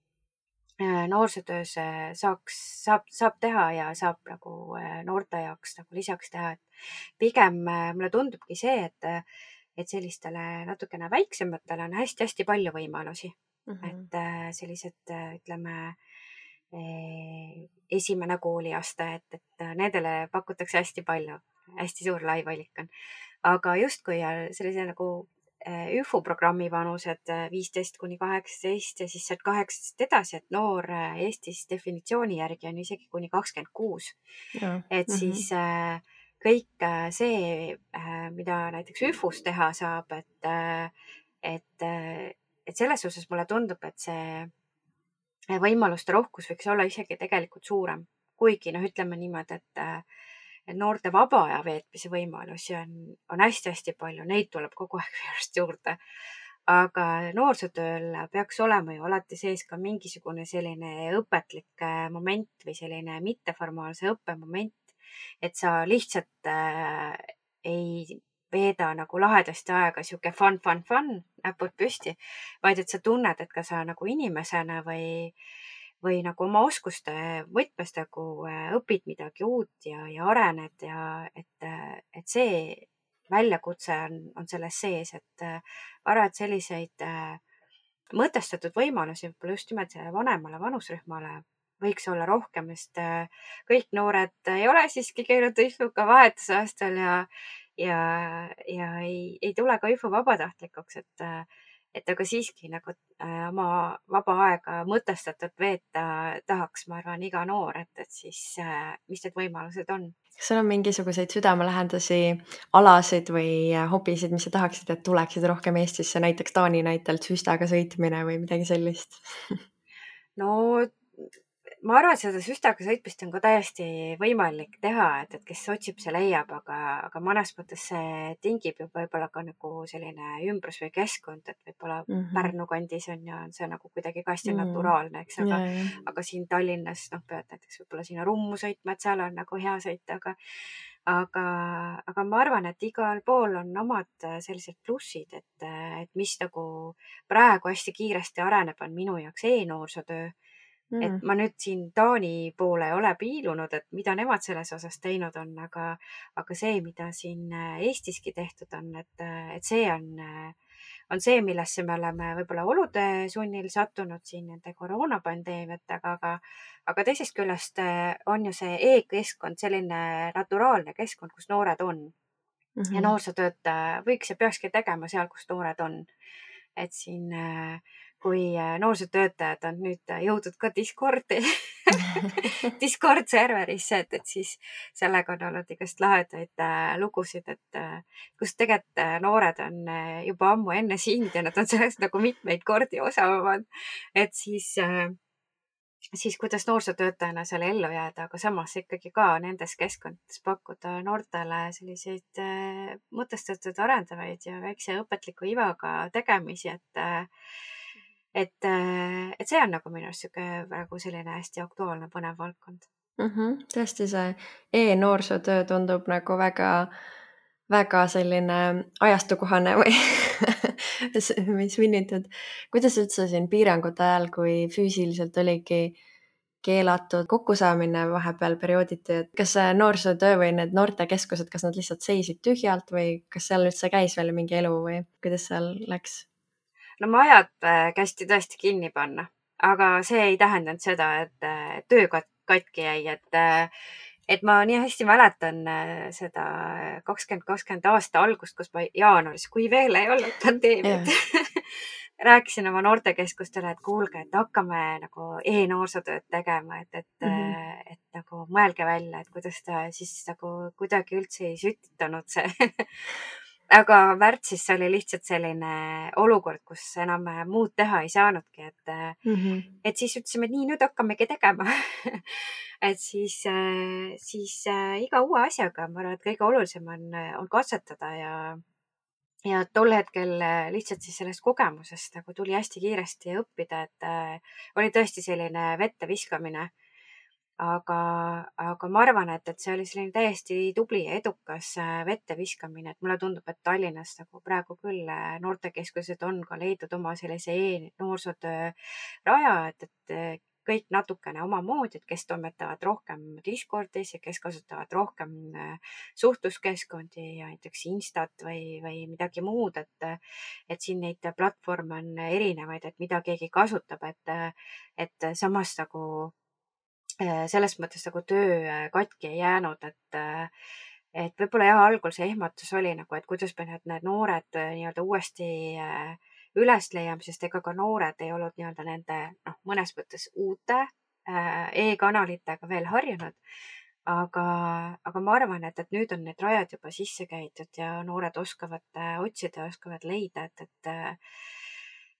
noorsootöös saab teha ja saab nagu noorte jaoks nagu lisaks teha, et pigem mulle tundubki see, et sellistele natukene väiksematele on hästi-hästi palju võimalusi. Et sellised, ütleme, esimene kooliaste, et nendele pakutakse hästi palju, hästi suur lai valik on. Aga justkui sellise nagu ÜFU programmi vanused 15–18 ja siis sealt 18 edasi, et noor Eestis definitsiooni järgi on isegi kuni 26. Et siis kõik see, mida näiteks ÜFUs teha saab, et selles osas mulle tundub, et see võimaluste rohkus võiks olla isegi tegelikult suurem. Kuigi ütleme niimoodi, et noorte vaba aja veetmise võimalusi on hästi-hästi palju, neid tuleb kogu aeg järjest juurde. Aga noorsootööl peaks olema ju alati sees ka mingisugune selline õpetlik moment või selline mitteformaalse õppemoment, et sa lihtsalt ei veeda nagu lahedasti aega sihuke fun, näpud püsti, vaid et sa tunned, et ka sa nagu inimesena või nagu oma oskuste võtmes nagu õpid midagi uut ja arened ja et see väljakutse on selles sees, et arvan, et selliseid mõtestatud võimalusi võib-olla just nimelt sellele vanemale vanusrühmale võiks olla rohkem, sest kõik noored ei ole siiski käinud ÜFU-ga vahetusaastal ja ei tule ka ÜFU vabatahtlikuks, et aga siiski nagu oma vaba aega mõtestatult veeta tahaks, ma arvan, iga noor, et siis mis need võimalused on. Kas sul on mingisuguseid südamelähendasi alasid või hobisid, mis sa tahaksid, et tuleksid rohkem Eestisse, näiteks Taani näitelt süstaga sõitmine või midagi sellist? No ma arvan, et seda süstaga sõitmist on ka täiesti võimalik teha, et kes otsib, see leiab, aga mõnes mõttes see tingib ju võib-olla ka nagu selline ümbrus või keskkond, et võib-olla Pärnu kandis on see nagu kuidagi ka hästi naturaalne, eks, aga siin Tallinnas pead näiteks võib-olla sinna Rummu sõitma, et seal on nagu hea sõita, aga ma arvan, et igal pool on omad sellised plussid, et mis nagu praegu hästi kiiresti areneb, on minu jaoks e-noorsootöö. Et ma nüüd siin Taani poole ei ole piilunud, et mida nemad selles osas teinud on, aga see, mida siin Eestiski tehtud on, et see on see, millesse me oleme võib-olla olude sunnil sattunud siin nende koroonapandeemiatega, aga teisest küljest on ju see e-keskkond selline naturaalne keskkond, kus noored on. Ja noorsootööd võiks ja peakski tegema seal, kus noored on. Et siin kui noorsootöötajad on nüüd jõudnud ka Discordi, Discord serverisse, et siis sellega on olnud igast lahedaid lugusid, et kus tegelikult noored on juba ammu enne sind ja nad on sellest nagu mitmeid kordi osavamad, et siis kuidas noorsootöötajana seal ellu jääda, aga samas ikkagi ka nendes keskkondades pakkuda noortele selliseid mõtestatud arendavaid ja väikse õpetliku ivaga tegemisi, et see on nagu minu arust praegu selline hästi aktuaalne põnev valdkond. Tõesti, see e-noorsootöö tundub nagu väga selline ajastukohane või mis vinnitud. Kuidas üldse siin piirangute ajal, kui füüsiliselt oligi keelatud kokkusaamine vahepeal periooditi, et kas see noorsootöö või need noortekeskused, kas nad lihtsalt seisid tühjalt või kas seal üldse käis veel mingi elu või kuidas seal läks? No majad kästi tõesti kinni panna, aga see ei tähendanud seda, et töö katki jäi, et ma nii hästi mäletan seda 2020 aasta algust, kus ma jaanuaris, kui veel ei olnud pandeemiat, rääkisin oma noortekeskustele, et kuulge, et hakkame nagu e-noorsootööd tegema, et nagu mõelge välja, et kuidas ta siis nagu kuidagi üldse ei sütitanud see. Aga märtsis oli lihtsalt selline olukord, kus enam muud teha ei saanudki, et siis ütlesime, et nii, nüüd hakkamegi tegema. et siis iga uue asjaga, ma arvan, et kõige olulisem on katsetada ja tol hetkel lihtsalt siis sellest kogemusest nagu tuli hästi kiiresti õppida, et oli tõesti selline vette viskamine. Aga ma arvan, et see oli selline täiesti tubli ja edukas vette viskamine, et mulle tundub, et Tallinnas nagu praegu küll noortekeskused on ka leidnud oma sellise e-noorsootöö raja, et kõik natukene omamoodi, et kes toimetavad rohkem Discordis ja kes kasutavad rohkem suhtluskeskkondi ja näiteks Instat või midagi muud, et siin neid platvorme on erinevaid, et mida keegi kasutab, et samas nagu selles mõttes nagu töö katki ei jäänud, et võib-olla jah, algul see ehmatus oli nagu, et kuidas me need noored nii-öelda uuesti üles leiame, sest ega ka noored ei olnud nii-öelda nende mõnes mõttes uute e-kanalitega veel harjunud. Aga ma arvan, et nüüd on need rajad juba sisse käidud ja noored oskavad otsida ja oskavad leida,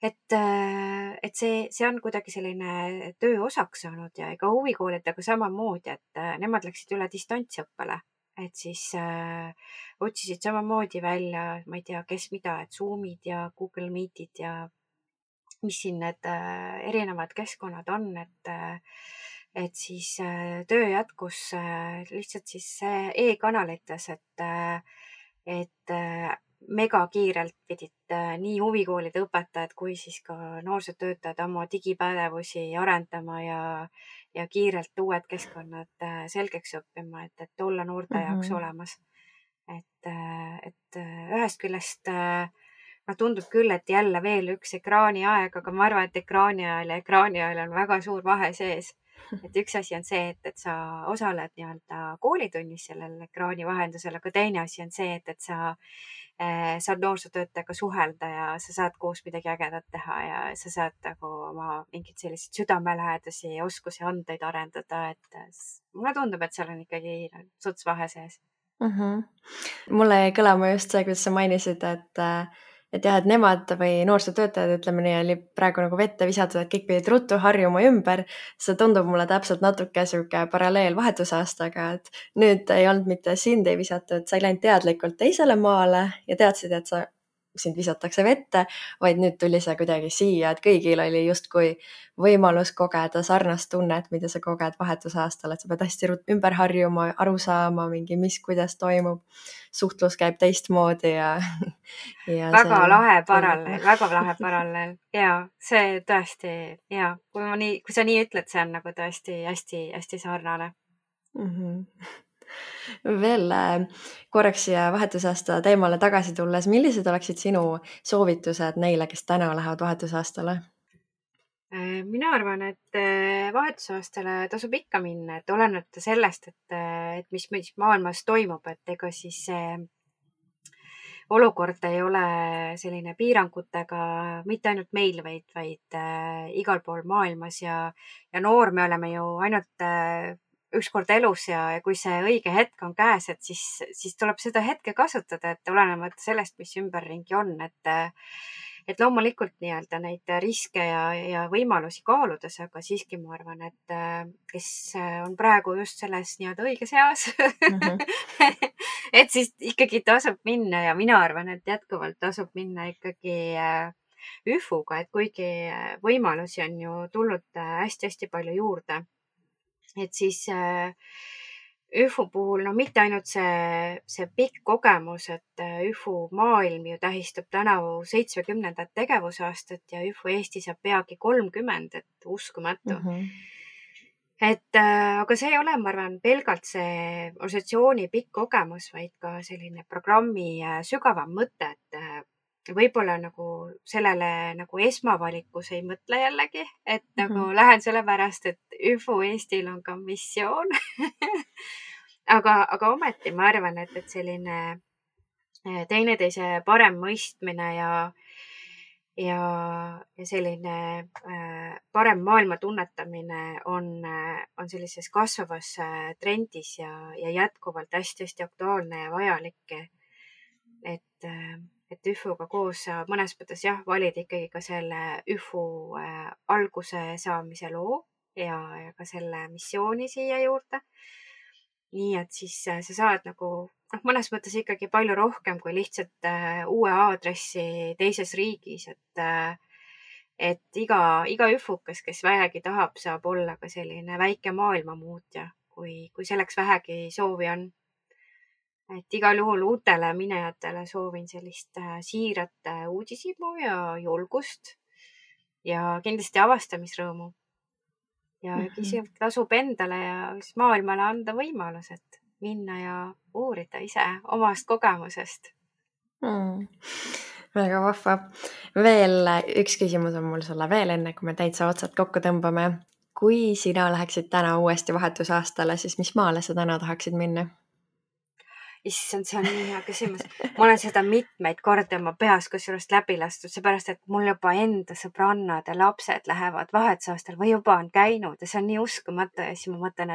et see on kuidagi selline töö osaks saanud ja ega huvikoolidega samamoodi, et nemad läksid üle distantsõppele, et siis otsisid samamoodi välja, ma ei tea, kes mida, et Zoomid ja Google Meetid ja mis siin need erinevad keskkonnad on, et siis töö jätkus lihtsalt siis e-kanalites, et megakiirelt pidid nii huvikoolide õpetajad kui siis ka noorsootöötajad oma digipädevusi arendama ja kiirelt uued keskkonnad selgeks õppima, et olla noorte jaoks olemas. Et ühest küljest tundub küll, et jälle veel üks ekraaniaeg, aga ma arvan, et ekraani ajal on väga suur vahe sees. Et üks asi on see, et sa osaled nii-öelda koolitunnis sellel ekraani vahendusel, aga teine asi on see, et sa saad noorsootöötajaga suhelda ja sa saad koos midagi ägedat teha ja sa saad nagu oma mingeid selliseid südamelähedasi oskusi, andeid arendada, et mulle tundub, et seal on ikkagi suts vahe sees. Mulle jäi kõlama just see, kuidas sa mainisid, et jah, et nemad või noorsootöötajad, ütleme nii, oli praegu nagu vette visatud, et kõik pidid ruttu harjuma ümber. See tundub mulle täpselt natuke sihuke paralleel vahetusaastaga, et nüüd ei olnud mitte sind ei visatud, sa ei läinud teadlikult teisele maale ja teadsid, et sind visatakse vette, vaid nüüd tuli see kuidagi siia, et kõigil oli justkui võimalus kogeda sarnast tunnet, mida sa koged vahetusaastal, et sa pead hästi ümber harjuma, aru saama mingi, kuidas toimub. Suhtlus käib teistmoodi ja väga lahe paralleel ja see tõesti ja kui sa nii ütled, see on nagu tõesti hästi sarnane. Veel korraks siia vahetusaasta teemale tagasi tulles, millised oleksid sinu soovitused neile, kes täna lähevad vahetusaastale? Mina arvan, et vahetusaastale tasub ikka minna, et olenemata sellest, et mis maailmas toimub, et ega siis olukord ei ole selline piirangutega mitte ainult meil, vaid igal pool maailmas ja noor me oleme ju ainult ükskord elus ja kui see õige hetk on käes, et siis tuleb seda hetke kasutada, et olenemata sellest, mis ümberringi on, et loomulikult nii-öelda neid riske ja võimalusi kaaludes, aga siiski ma arvan, et kes on praegu just selles nii-öelda õiges eas, et siis ikkagi tasub minna ja mina arvan, et jätkuvalt tasub minna ikkagi ÜFU-ga, et kuigi võimalusi on ju tulnud hästi-hästi palju juurde, et siis ÜFU puhul, mitte ainult see pikk kogemus, et ÜFU maailm ju tähistab tänavu 70. tegevusaastat ja ÜFU Eesti saab peagi 30, et uskumatu. Aga see ei ole, ma arvan, pelgalt see organisatsiooni pikk kogemus, vaid ka selline programmi sügavam mõte, et võib-olla nagu sellele nagu esmavalikus ei mõtle jällegi, et nagu lähen sellepärast, et ÜFU Eestil on ka missioon. aga ometi ma arvan, et selline teineteise parem mõistmine ja selline parem maailma tunnetamine on sellises kasvavas trendis ja jätkuvalt hästi-hästi aktuaalne ja vajalik. et, et ÜFO-ga koos sa mõnes mõttes jah, valid ikkagi ka selle ÜFO alguse saamise loo ja ka selle missiooni siia juurde. Nii et siis sa saad nagu mõnes mõttes ikkagi palju rohkem kui lihtsalt uue aadressi teises riigis, et iga üfukas, kes vähegi tahab, saab olla ka selline väike maailmamuutja, kui selleks vähegi soovi on. Et igal juhul uutele minejatele soovin sellist siirat uudishimu ja julgust ja kindlasti avastamisrõõmu. Ja kisivalt tasub endale ja maailmale anda võimalus, et minna ja uurida ise omast kogemusest. Väga vahva. Veel üks küsimus on mul sulle veel enne, kui me täitsa otsad kokku tõmbame. Kui sina läheksid täna uuesti vahetusaastale, siis mis maale sa täna tahaksid minna? Issand, see on nii hea küsimus. Ma olen seda mitmeid kordi oma peas kusjuures läbi lastud, seepärast et mul juba enda sõbrannad ja lapsed lähevad vahetusaastal või juba on käinud ja see on nii uskumatu. Ja siis ma mõtlen,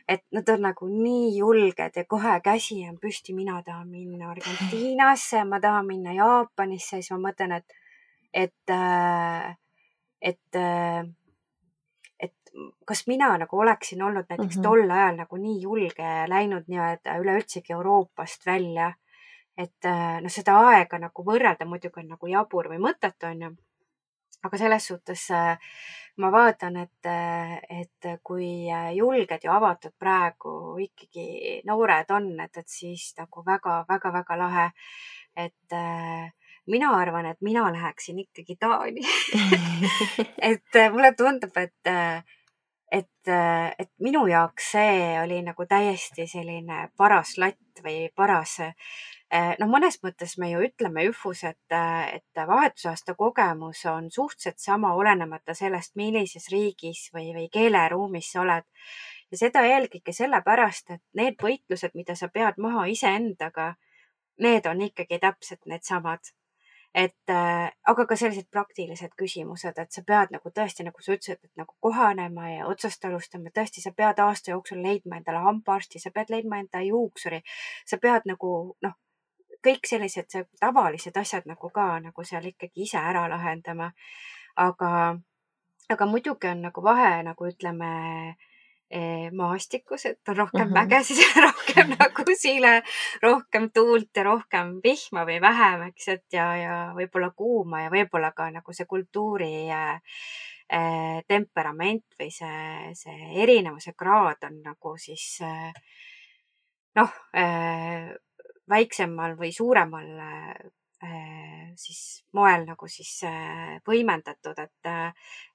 et nad on nagu nii julged ja kohe käsi on püsti. Mina tahan minna Argentiinasse, ma tahan minna Jaapanisse. Siis ma mõtlen, et kas mina nagu oleksin olnud näiteks tol ajal nagu nii julge ja läinud nii-öelda üleüldsegi Euroopast välja, et seda aega nagu võrrelda muidugi on nagu jabur või mõttetu, on ju. Aga selles suhtes ma vaatan, et kui julged ja avatud praegu ikkagi noored on, et siis nagu väga-väga-väga lahe, et mina arvan, et mina läheksin ikkagi Taani. et mulle tundub, et minu jaoks see oli nagu täiesti selline paras latt või paras, mõnes mõttes me ju ütleme ÜFUs, et vahetusaasta kogemus on suhteliselt sama, olenemata sellest, millises riigis või keeleruumis sa oled. Ja seda eelkõige sellepärast, et need võitlused, mida sa pead maha iseendaga, need on ikkagi täpselt needsamad. Aga ka sellised praktilised küsimused, et sa pead nagu tõesti, nagu sa ütlesid, et nagu kohanema ja otsast alustama. Tõesti, sa pead aasta jooksul leidma endale hambaarsti, sa pead leidma enda juuksuri, sa pead nagu kõik sellised tavalised asjad nagu ka nagu seal ikkagi ise ära lahendama. Aga muidugi on nagu vahe, nagu ütleme, maastikus, et on rohkem mägesid ja rohkem nagu sile, rohkem tuult ja rohkem vihma või vähem, eks, et ja võib-olla kuuma ja võib-olla ka nagu see kultuuri temperament või see erinevuse kraad on nagu siis väiksemal või suuremal siis moel nagu siis võimendatud, et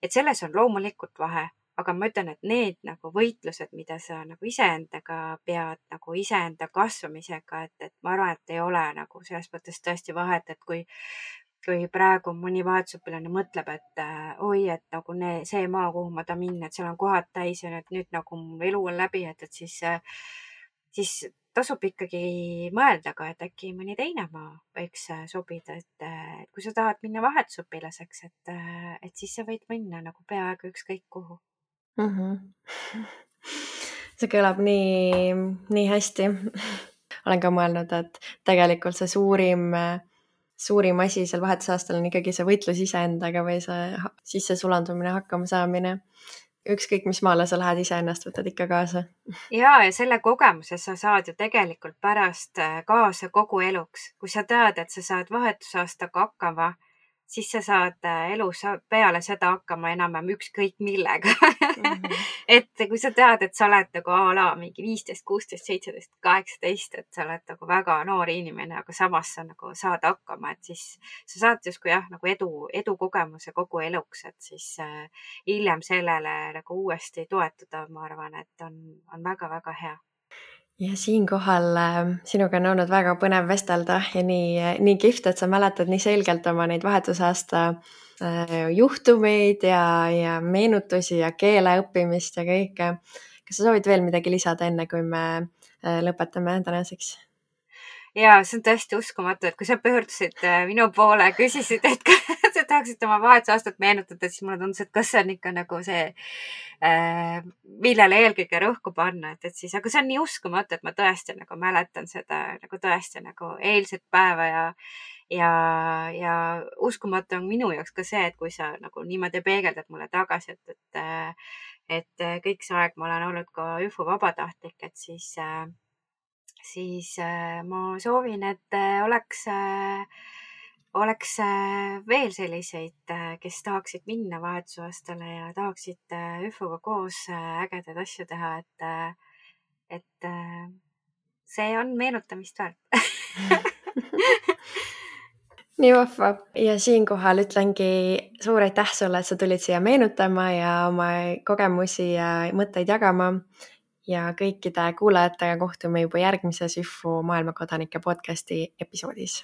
selles on loomulikult vahe. Aga ma ütlen, et need nagu võitlused, mida sa nagu iseendaga pead, nagu iseenda kasvamisega, et ma arvan, et ei ole nagu selles mõttes tõesti vahet, et kui praegu mõni vahetusõpilane mõtleb, et oi, et nagu see maa, kuhu ma tahan minna, et seal on kohad täis ja nüüd nagu mu elu on läbi, et siis tasub ikkagi mõelda ka, et äkki mõni teine maa võiks sobida, et kui sa tahad minna vahetusõpilaseks, et siis sa võid minna nagu peaaegu ükskõik kuhu. See kõlab nii hästi. Olen ka mõelnud, et tegelikult see suurim asi seal vahetusaastal on ikkagi see võitlus iseendaga või see sisse sulandumine, hakkama saamine. Ükskõik, mis maale sa lähed, iseennast võtad ikka kaasa. Ja selle kogemuse sa saad ju tegelikult pärast kaasa kogu eluks. Kui sa tead, et sa saad vahetusaastaga hakkama, siis sa saad elus peale seda hakkama enam-vähem ükskõik millega. Et kui sa tead, et sa oled nagu a la mingi 15, 16, 17, 18, et sa oled nagu väga noor inimene, aga samas sa nagu saad hakkama, et siis sa saad justkui jah, nagu edu kogemuse kogu eluks, et siis hiljem sellele nagu uuesti toetuda, ma arvan, et on väga-väga hea. Ja siinkohal sinuga on olnud väga põnev vestelda ja nii kihvt, et sa mäletad nii selgelt oma neid vahetusaasta juhtumeid ja meenutusi ja keele õppimist ja kõike. Kas sa soovid veel midagi lisada enne, kui me lõpetame tänaseks? ja see on tõesti uskumatu, et kui sa pöördusid minu poole, küsisid, et kas sa tahaksid oma vahetusaastat meenutada, siis mulle tundus, et kas see on ikka nagu see, millele eelkõige rõhku panna, et siis, aga see on nii uskumatu, et ma tõesti nagu mäletan seda nagu tõesti nagu eilset päeva ja uskumatu on minu jaoks ka see, et kui sa nagu niimoodi peegeldad mulle tagasi, et kõik see aeg ma olen olnud ka ÜFO vabatahtlik, et siis ma soovin, et oleks veel selliseid, kes tahaksid minna vahetusaastale ja tahaksid ÜFO-ga koos ägedaid asju teha, et see on meenutamist väärt. Nii vahva. Ja siinkohal ütlengi suur aitäh sulle, et sa tulid siia meenutama ja oma kogemusi ja mõtteid jagama. Ja kõikide kuulajatega kohtume juba järgmises ÜFO maailmakodanike podcasti episoodis.